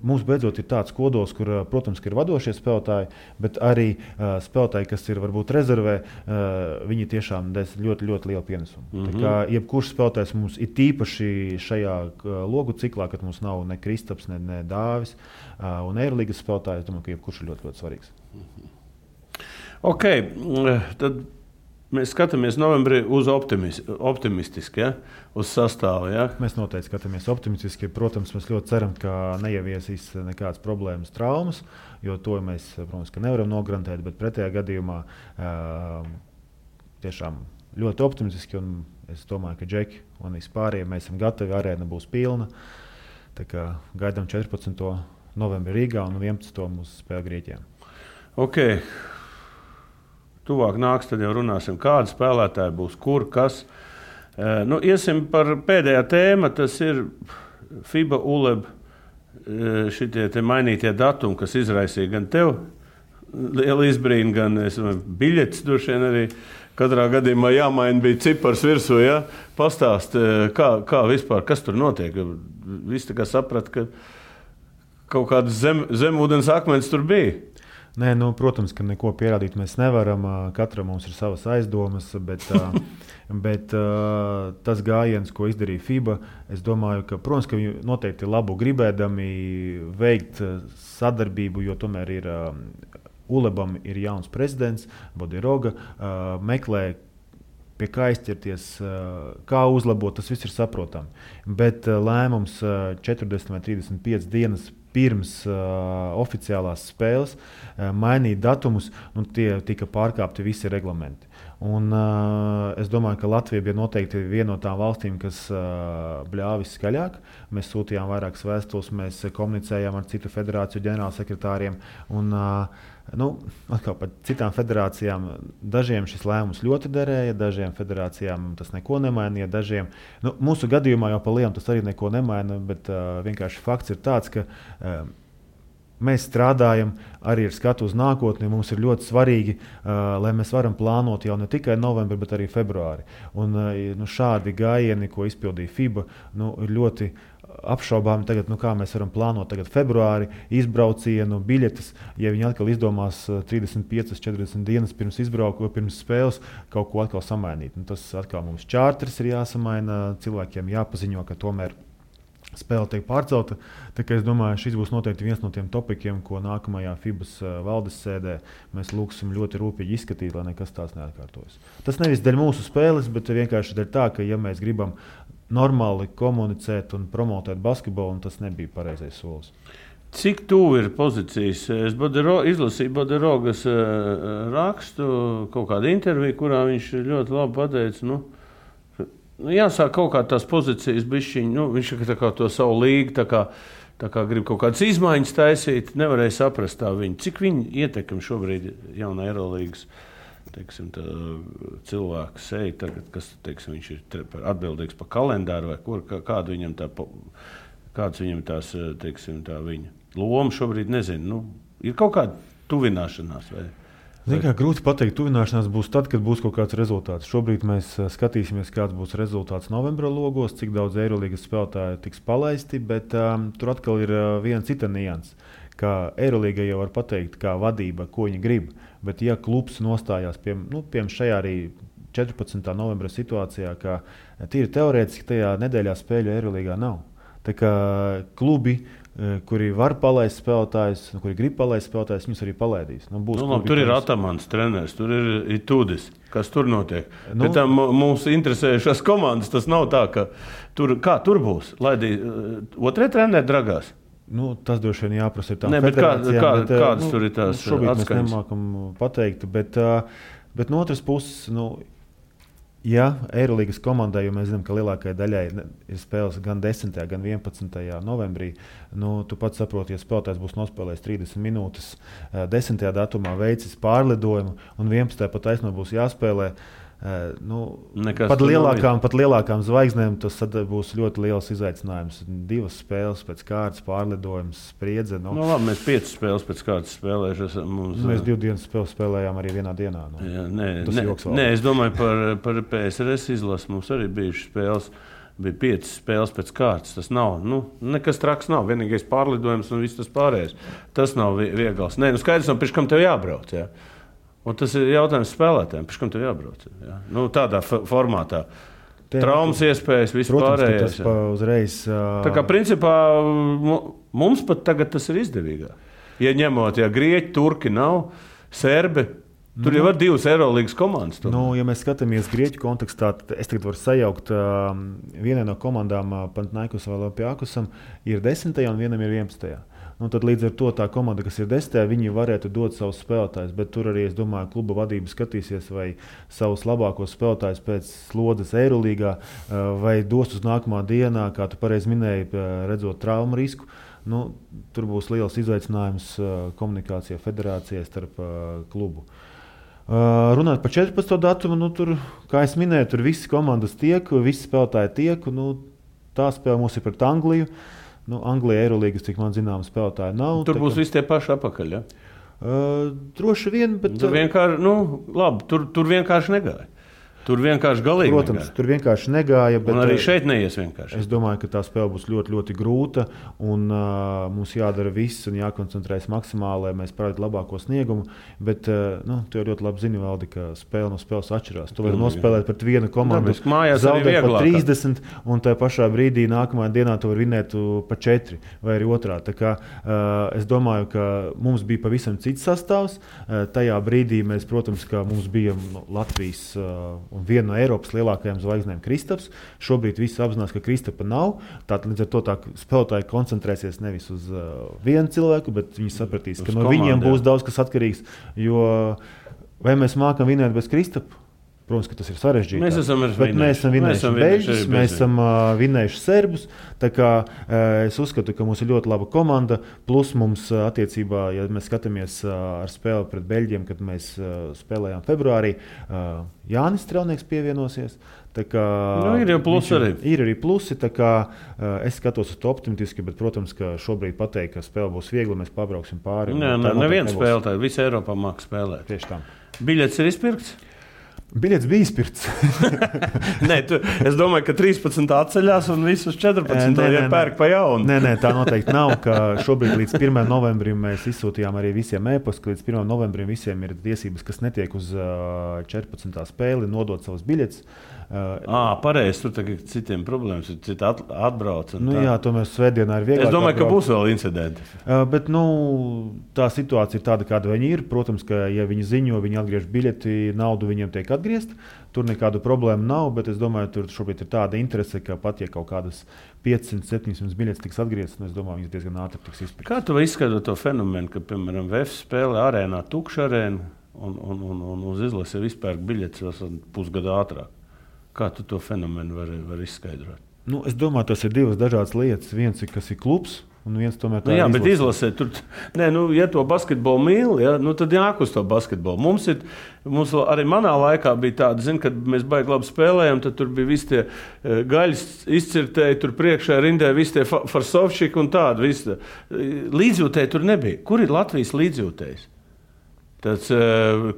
mums beidzot ir tāds kodols, kur, protams, ir vadošie spēlētāji, bet arī spēlētāji, kas ir varbūt rezervē, viņi tiešām des ļoti, ļoti lielu pienesumu. Tā kā jebkurš spēlētājs mums ir tīpaši šajā logu ciklā, kad mums nav ne Kristaps, ne Dāvis un Eirolīgas spēlētāji, es domāju, ka jebkurš ir ļoti, ļoti svarīgs. Ok, tad mēs skatāmies novembrī uz optimistiski, ja? Uz sastāvu. Ja? Mēs noteikti skatāmies optimistiski. Protams, mēs ļoti ceram, ka neieviesīs nekādas problēmas, traumas, jo to mēs, protams, nevaram nograntēt, bet pretējā gadījumā tiešām ļoti optimistiski. Es domāju, ka džeki un vispārējie mēs esam gatavi, arēna būs pilna. Tā kā gaidām 14. novembrī Rīgā un 11. mūsu spēle Grieķijā. Ok. Tuvāk nāks, tad jau runāsim, kādi spēlētāji būs, kur, kas. Iesim par pēdējā tēma, tas ir FIBA ULEB šitie te mainītie datumi, kas izraisīja gan tev lielu izbrīnu, gan biļetes droši vien arī katrā gadījumā jāmaina bija cipars virsū, ja? Pastāst, kā vispār, kas tur notiek? Visi tā kā saprat, ka kaut kādas zemūdens akmens tur bija. Nē, protams, ka neko pierādīt mēs nevaram. Katram mums ir savas aizdomas, bet tas gājiens, ko izdarīja FIBA, es domāju, ka, protams, ka viņi noteikti labu gribēdami veikt sadarbību, jo tomēr ir ULEBam ir jauns prezidents, Bodiroga, meklē, pie kā aizķerties, kā uzlabot, tas viss ir saprotami. Bet lēmums 40 vai 35 dienas pirms oficiālās spēles mainīt datumus, tie tika pārkāpti visi reglamenti. Un, es domāju, ka Latvija bija noteikti viena no tām valstīm, kas bļāva viskaļāk. Mēs sūtījām vairākas vēstules, mēs komunicējām ar citu federāciju ģenerālsekretāriem. Un, atkal par citām federācijām dažiem šis lēmums ļoti derēja, dažiem federācijām tas neko nemainīja. Mūsu gadījumā jau pa lielu tas arī neko nemaina, bet vienkārši fakts ir tāds, ka mēs strādājam arī ar skatu uz nākotni. Mums ir ļoti svarīgi, lai mēs varam plānot jau ne tikai novembri, bet arī februāri. Un šādi gājieni, ko izpildīja FIBA, ir ļoti apšaubāmi tagad, kā mēs varam plānot tagad februāri, izbraucienu, biļetes, ja viņi atkal izdomās 35-40 dienas pirms spēles kaut ko atkal samainīt. Tas atkal mums čārters ir jāsamaina, cilvēkiem jāpaziņo, ka tomēr spēle tiek pārcelta. Tā kā es domāju, šis būs noteikti viens no tiem topikiem, ko nākamajā FIBAS valdes sēdē mēs lūgsim ļoti rūpīgi izskatīt, lai nekas tās neatkārtojas. Tas nevis dēļ mūsu spēles, bet vienkārši dēļ tā, ka ja mēs gribam normāli komunicēt un promotēt basketbolu, un tas nebija pareizais solis. Cik tuvu ir pozīcijas? Es izlasīju Boderogas rakstu, kaut kādu interviju, kurā viņš ļoti labi pateica, jāsāk kaut kā tās pozīcijas bišķiņ, viņš tā kā to savu līgu, tā kā grib kaut kādas izmaiņas taisīt, nevarēja saprast tā viņu. Cik viņi ietekmi šobrīd jaunā Eirolīgas cilvēku seja tagad, kas viņš ir atbildīgs par kalendāru vai kur, kāda viņam kāds viņam tās tā viņa loma šobrīd, nezinu. Ir kaut kāda tuvināšanās vai? Grūti pateikt, tuvināšanās būs tad, kad būs kaut kāds rezultāts. Šobrīd mēs skatīsimies, kāds būs rezultāts novembra logos, cik daudz Eirolīgas spēlētāju tiks palaisti, bet tur atkal ir viena cita nianse. Kā Eirolīga jau var pateikt, kā vadība, ko viņi grib, bet ja klubs nostājās pie šajā arī 14. novembra situācijā, ka tīri teorētiski tajā nedēļā spēļu Eirolīgā nav. Tā kā klubi, kuri var palaist spēlētājus, kuri grib palaist spēlētājus, viņus arī palaidīs. Tur ir Atamans treneris, tur ir Tudis. Kas tur notiek? Bet tā mūs interesējušās komandas, tas nav tā, ka tur būs. Otrie treneri dragās? Tas droši vien jāprasa ir tām federācijām. Kādas tur ir tās šobrīd atskaņas? Mēs nemākam pateikt, bet no otras puses, ja Eirolīgas komandai, jo mēs zinām, ka lielākajai daļai ir spēles gan 10. gan 11. novembrī, tu pats saproti, ja spēlētājs būs nospēlējis 30 minūtes 10. datumā, veicis pārlidojumu un 11. pat taisno būs jāspēlē, pat lielākām zvaigznēm tas būs ļoti liels izaicinājums. 2 spēles pēc kārtas, pārlidojums, spriedze. Labi, mēs 5 spēles pēc kārtas spēlējuši. Mēs 2 dienas spēles spēlējām arī vienā dienā. Es domāju par PSRS izlasi. Mums arī bijušas spēles. Bija 5 spēles pēc kārtas. Tas nav, nekas traks nav. Vienīgais pārlidojums un viss tas pārējais. Tas nav viegls. Skaidrs, pirms kam tev jābrauc. Jā. Un tas ir jautājums spēlētājiem, pēc kam tev jābrauc. Ja? Tādā formātā. Traumas iespējas, viss pārējais. Uzreiz, Tā kā principā mums pat tagad tas ir izdevīgāk. Ja ņemot, grieķi, turki nav, serbi, tur jau ir 2 Eirolīgas komandas. Ja mēs skatāmies grieķu kontekstā, tad es tagad varu sajaukt vienai no komandām, Panathinaikos vai Olympiakosam, ir 10. un vienam ir 11. Tad līdz ar to tā komanda, kas ir 10. viņi varētu dot savus spēlētājus, bet tur arī, es domāju, kluba vadība skatīsies, vai savus labākos spēlētājus pēc slodzes Eirolīgā, vai dos uz nākamā dienā, kā tu pareizi minēji, redzot traumu risku. Tur būs liels izaicinājums komunikācijā federācijai starp klubu. Runāt par 14. datumu, tur, kā es minēju, tur visi komandas tiek, visi spēlētāji tiek, tā spēle mums ir pret Angliju. Anglijā Eirolīgas, cik man zināms, spēlētāji nav. Tur būs visi tie paši apakaļ, ja? Droši vien, bet... Tur vienkārši negāja. Tur vienkārši galīgi Protams, negāja. Tur vienkārši negāja. Bet un arī šeit neies vienkārši. Es domāju, ka tā spēle būs ļoti, ļoti grūta. Un mums jādara viss un jākoncentrējas maksimāli, lai mēs parādītu labāko sniegumu. Bet tu jau ļoti labi zini, Valdi, ka spēle no spēles atšķirās. Tu vari nospēlēt pret vienu komandu, zaudēt par 30, un tajā pašā brīdī nākamajā dienā tu vari vinēt par 4 vai arī otrā. Tā kā es domāju, ka mums bija pavisam cits sastāvs. Tajā brīdī mēs, protams, ka mums bija Latvijas un viena no Eiropas lielākajām zvaigznēm Kristaps. Šobrīd visi apzinās, ka Kristapa nav. Tātad līdz ar to tā spēlētāji koncentrēsies nevis uz vienu cilvēku, bet viņi sapratīs, ka no viņiem būs daudz kas atkarīgs. Jo vai mēs mākam vinēt bez Kristapa? Protams, ka tas ir sarežģīti. Mēs esam vinējuši beļģus, mēs esam vinējuši serbus. Tā kā es uzskatu, ka mums ir ļoti laba komanda. Plus mums attiecībā, ja mēs skatāmies ar spēli pret beļģiem, kad mēs spēlējām februārī, Jānis Strelnieks pievienosies. Tā kā, ir jau plusi arī. Ir arī plusi, tā kā es skatos uz to optimistiski, bet, protams, ka šobrīd pateikt, ka spēle būs viegla, mēs pabrauksim pāri. Neviens spēlētāji, visa Eiropā māks spēlēt. Tieši tā. Biļets ir izpirkts? Biļets bija izpirkts. Es domāju, ka 13 atceļās un visus 14 pērk pa jaunu. Nē, tā noteikti nav. Šobrīd līdz 1. novembrim mēs izsūtījām arī visiem e-pastu, ka līdz 1. novembrim visiem ir tiesības, kas netiek uz 14. spēli, nodot savus biļetes. Pareizi, tur tagad citiem problēmas, citi atbrauc. Jā, tomēr svētdienā ir vieglāk. Es domāju, ka būs vēl incidenti. Bet tā situācija ir tāda, kāda viņi ir. Protams, ka ja viņi ziņo, viņi atgriež biļeti, naudu viņiem tiek atgriezt. Tur nekādu problēmu nav, bet es domāju, tur šobrīd ir tāda interese, ka pat ja kaut kādas 500-700 biļetes tiks atgrieztas, es domāju, viņas diezgan ātri tiks izpirktas. Kā tu izskaidro to fenomenu, ka, piemēram, VF spēlē arēnā tukša arēna un uz izlasi vispār biļetes pusgadu ātrāk? Kā tu to fenomenu vari izskaidrot? Es domāju, tas ir divas dažādas lietas. Viens ir, kas ir klubs, un viens tomēr tā ir izlase. Bet izlasē tur, ja to basketbolu mīl, tad jāk uz to basketbolu. Mums arī manā laikā bija tāda, kad mēs baigi labi spēlējām, tad tur bija visi tie gaļas izcirtēji, tur priekšā rindē visi tie farsovšiki un tādi. Līdzjūtēji tur nebija. Kur ir Latvijas līdzjūtējs? Tas,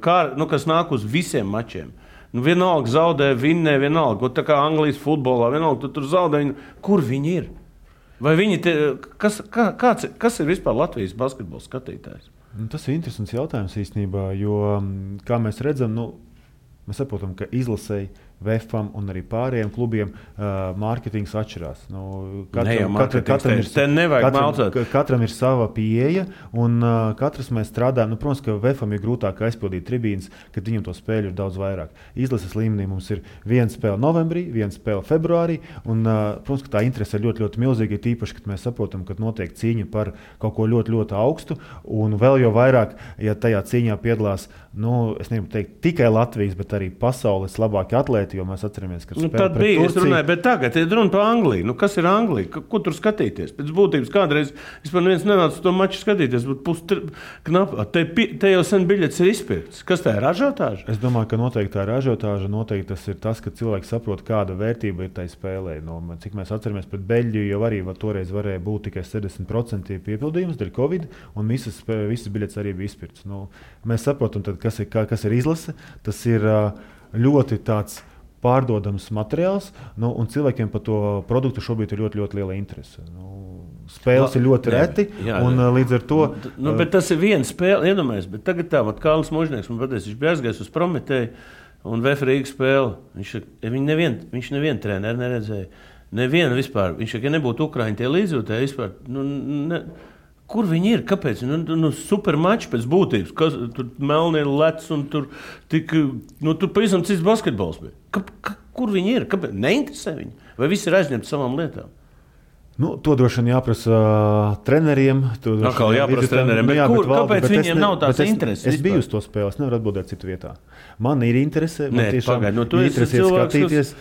kas nāk uz visiem mačiem. Vienalga zaudē, vinnē, vienalga. Tā kā Anglijas futbolā, vienalga, tur zaudē. Kur viņi ir? Vai viņi kas ir vispār Latvijas basketbola skatītājs? Tas ir interesants jautājums īstenībā, jo, kā mēs redzam, mēs saprotam, ka izlasēji VFam un arī pārējiem klubiem mārketings atšķirās. Katram ir sava pieeja, un katrs mēs strādājam. Protams, ka VFam ir grūtāk aizpildīt tribīnes, kad viņam to spēļu ir daudz vairāk. Izlases līmenī mums ir viena spēle novembrī, viena spēle februārī, un, protams, ka tā interese ir ļoti, ļoti milzīga, tīpaši, kad mēs saprotam, ka notiek cīņa par kaut ko ļoti, ļoti augstu, un vēl jau vairāk, ja tajā cīņā piedalās, es negribu teikt tikai Latvijas, bet arī pasaules labākie atlēti, jo mēs atceramies, ka tad bija, es runāju, bet tagad ir runa par Angliju. Kas ir Anglija? Ko tur skatīties? Pēc būtības kādreiz vispār neviens nenāca to maču skatīties, bet te jau sen biļetes ir izpirkts. Kas tā ir ražotāža? Es domāju, ka noteikti tā ir ražotāža, noteikti tas ir tas, ka cilvēki saprot, kāda vērtība ir tai spēlē. Cik mēs atceramies pret Beļģiju, jau arī toreiz varēja būt tikai 70% piepildījums dēļ Covid, un visas biļetes arī bija izpirkts. Mēs saprotam, tad, kas ir izlase. Tas ir ļoti tāds pārdodams materiāls, un cilvēkiem par to produktu šobrīd ir ļoti, ļoti liela interese. Spēles ir ļoti reti, un līdz ar to... Bet tas ir viena spēle, iedomājies, bet tagad Kārlis Možnieks, man pateicis, viņš bija aizgājis uz Prometēju un VF Rīgas spēli. Viņš nevienu treneru neredzēja, nevienu vispār. Viņš, ja nebūtu Ukraiņi tie līdzjūtēji vispār, kur viņi ir? Kāpēc? Supermači pēc būtības. Tur melnie lec un tur pavisam cits basketbols bija. Kur viņi ir? Kāpēc? Neinteresē viņi? Vai visi ir aizņemti savām lietām? To droši vien jāprasa treneriem. Jāprasa treneriem. Kāpēc viņiem nav tās intereses? Es biju uz to spēli, es nevaru atbildēt citu vietā. Man ir interese. Man tiešām ir interese skatīties.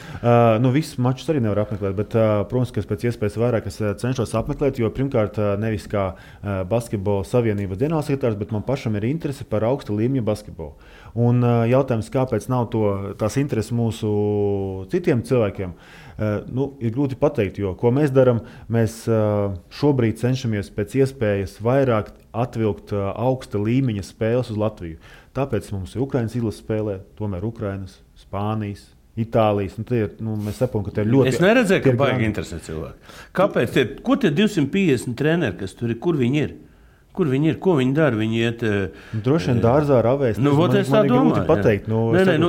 Visus mačus arī nevar apmeklēt, bet, protams, ka pēc iespējas vairāk es cenšos apmeklēt, jo pirmkārt nevis kā basketbola savienības ģenerālsekretārs, bet man pašam ir interese par augsta līmeņa basketbolu. Un jautājums, kāpēc nav tās intereses mūsu citiem cilvēkiem, ir grūti pateikt, jo ko mēs darām, mēs šobrīd cenšamies pēc iespējas vairāk atvilkt augsta līmeņa spēles uz Latviju. Tāpēc mums ir Ukrainas izlases spēlē, tomēr Ukrainas, Spānijas, Itālijas. Mēs saprotam, ka tie ir ļoti... Es neredzēju, ka baigi interesē cilvēki. Kāpēc? Ko tie 250 treneri, kas tur ir, kur viņi ir? Kur viņi ir? Ko viņi dara? Viņi iet... Droši vien dārzā ravēs. Es tā domāju. Pateikt.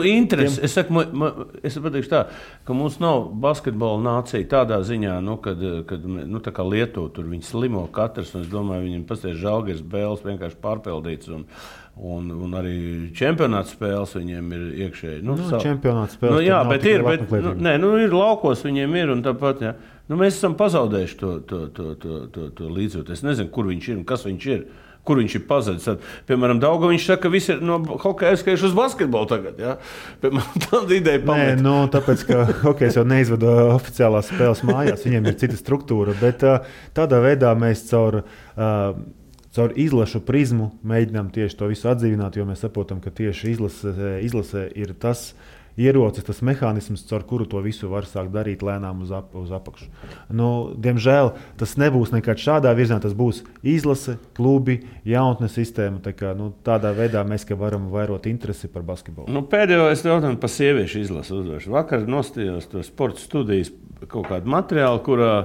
Interesi. Es pateikšu tā, ka mums nav basketbola nācija tādā ziņā, kad tā kā Lietuva, tur viņi slimo katrs, un es domāju, viņiem pasties Žalgiris Bēles vienkārši pārpildīts, un arī čempionāts spēles viņiem ir iekšēji. Čempionāts spēles. Ir laukos viņiem ir, un tāpat, jā. Mēs esam pazaudējuši to līdzjūtu. Es nezinu, kur viņš ir un kas viņš ir. Kur viņš ir pazudis. Piemēram, Daugaviņš saka, ka visi ir no hokeja aizskaijuši uz basketbolu tagad. Ja? Piemēram, tāda ideja pamet. Tāpēc, ka hokejs jau neizvada oficiālās spēles mājās, viņiem ir cita struktūra. Bet tādā veidā mēs caur izlašu prizmu mēģinām tieši to visu atdzīvināt, jo mēs saprotam, ka tieši izlase ir tas, ierocis, tas mehānisms, caur kuru to visu var sākt darīt lēnām uz apakšu. Diemžēl tas nebūs nekad šādā virzienā, tas būs izlase, klubi, jaunatnes sistēma. Tādā veidā mēs varam vairot interesi par basketbolu. Pēdējo es jautāju par sieviešu izlasi uzdošu. Vakar nostājos to sporta studijas kaut kādu materiālu, kurā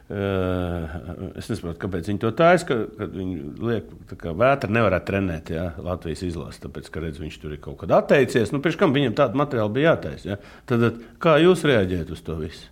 es nesaprotu, kāpēc viņi to taisa, kad viņi liek, ka Vētra nevarētu trenēt Latvijas izlasi, tāpēc, ka redz, viņš tur ir kaut kad atteicies. Pirms kam viņam tādu materiālu bija jātaisa? Tad kā jūs reaģējat uz to visu?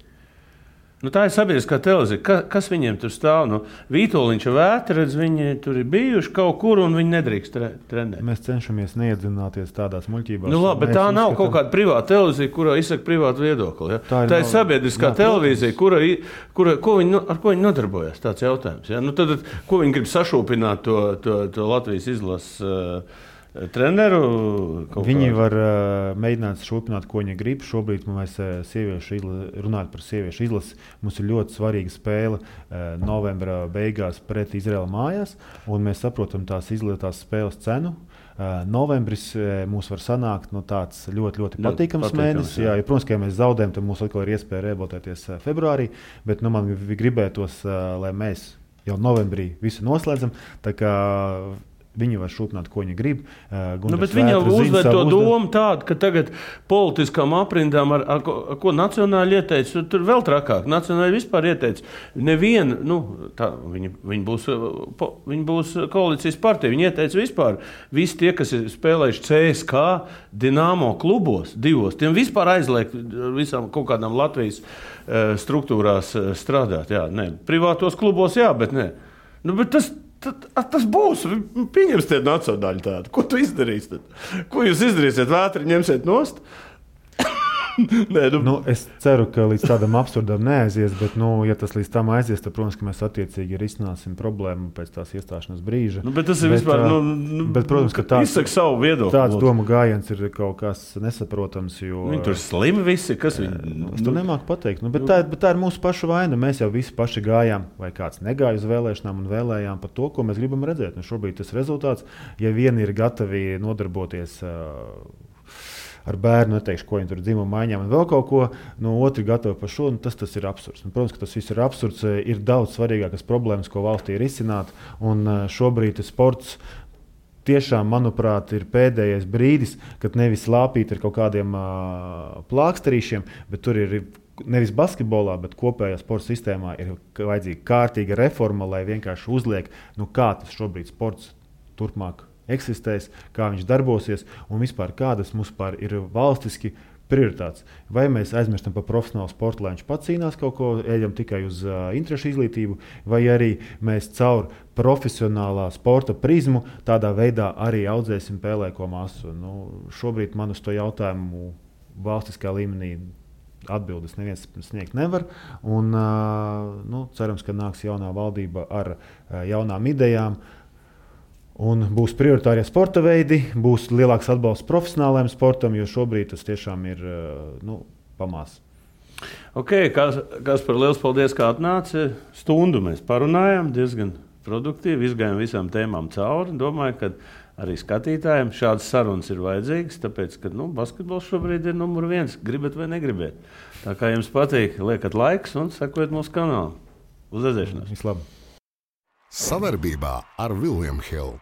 Tā ir sabiedriskā televīzija. Kas viņiem tur stāv? Vītoliņš un Vētra, redz, viņi tur ir bijuši kaut kur un viņi nedrīkst trenēt. Mēs cenšamies neiedzināties tādās muļķībās. Labi, bet tā nav kaut kāda privāta televīzija, kurā izsaka privātu viedokli. Ja? Tā ir sabiedriskā televīzija, ar ko viņi nodarbojas. Tāds jautājums. Ja? Tad, ko viņi grib sašūpināt to Latvijas izlases treneru? Viņi var mēģināt šūpināt, ko viņi grib. Šobrīd mēs runājam par sieviešu izlasi. Mums ir ļoti svarīga spēle novembra beigās pret Izraēlu mājās, un mēs saprotam tās spēles cenu. Novembris mums var sanākt tāds ļoti, ļoti patīkams mēnesis. Jā, protams, ka ja mēs zaudējam, tad mums atkal ir iespēja reabilitēties februārī, bet man gribētos, lai mēs jau novembrī visu noslēdzam. Viņi var šūpināt, ko viņi grib. Bet viņi jau uzvēr to domu tādu, ka tagad politiskām aprindām, ar ko nacionāli ieteica, tur vēl trakāk. Nacionāli vispār ieteica. Nevienu, viņi būs koalīcijas partija. Viņi ieteica vispār. Visi tie, kas ir spēlējuši CSK, Dinamo klubos, divos, tiem vispār aizliegt visām kaut kādām Latvijas struktūrās strādāt. Jā, privātos klubos, jā, bet ne. Bet tas būs. Pieņems tie nacionāļi tādu. Ko tu izdarīsi tad? Ko jūs izdarīsiet? Vētri ņemsiet nost? Es ceru, ka līdz tādam absurdam neaizies, bet, ja tas līdz tam aizies, tad, protams, ka mēs attiecīgi risināsim problēmu pēc tās iestāšanās brīža. Bet tas ir vispār, bet, protams, ka izsaka savu viedokli. Tāds domu gājiens ir kaut kas nesaprotams, jo... Viņi tur slimi visi, kas viņi... Es to nemāku pateikt, bet tā ir mūsu pašu vaina. Mēs jau visi paši gājām, vai kāds negāja uz vēlēšanām un vēlējām par to, ko mēs gribam redzēt. Šobrīd tas rezultāts, ja vieni ir gatavi nodarboties ar bērnu, neteikšu, ko viņi tur dzimuma maiņām un vēl kaut ko, otri gatavi par šo, tas ir absurds. Protams, ka tas viss ir absurds, ir daudz svarīgākas problēmas, ko valstī ir izcināt, un šobrīd sports tiešām, manuprāt, ir pēdējais brīdis, kad nevis lāpīt ar kaut kādiem plāksterīšiem, bet tur ir nevis basketbolā, bet kopējā sporta sistēmā ir vajadzīga kārtīga reforma, lai vienkārši uzliek, kā tas šobrīd sports turpmāk eksistēs, kā viņš darbosies un vispār kādas mums ir valstiski prioritātes. Vai mēs aizmirstam par profesionālu sportu, lai viņš pats cīnās kaut ko, ejam tikai uz interešu izglītību, vai arī mēs caur profesionālā sporta prizmu tādā veidā arī audzēsim pēlēko masu. Šobrīd man uz to jautājumu valstiskā līmenī atbildes neviens sniegt nevar. Un, cerams, ka nāks jaunā valdība ar jaunām idejām. Un būs prioritārie sporta veidi, būs lielāks atbalsts profesionālajiem sportam, jo šobrīd tas tiešām ir pamās. Kaspar, liels paldies, ka atnāci. Stundu mēs parunājām, diezgan produktīvi, izgājām visām tēmām cauri. Domāju, ka arī skatītājiem šādas sarunas ir vajadzīgas, tāpēc, ka basketbols šobrīd ir numur 1, gribat vai negribat. Tā kā jums patīk, liekat laiks un sekojiet mūsu kanālu. Uz redzēšanos! Vislabāk! Savarbībā ar William Hill.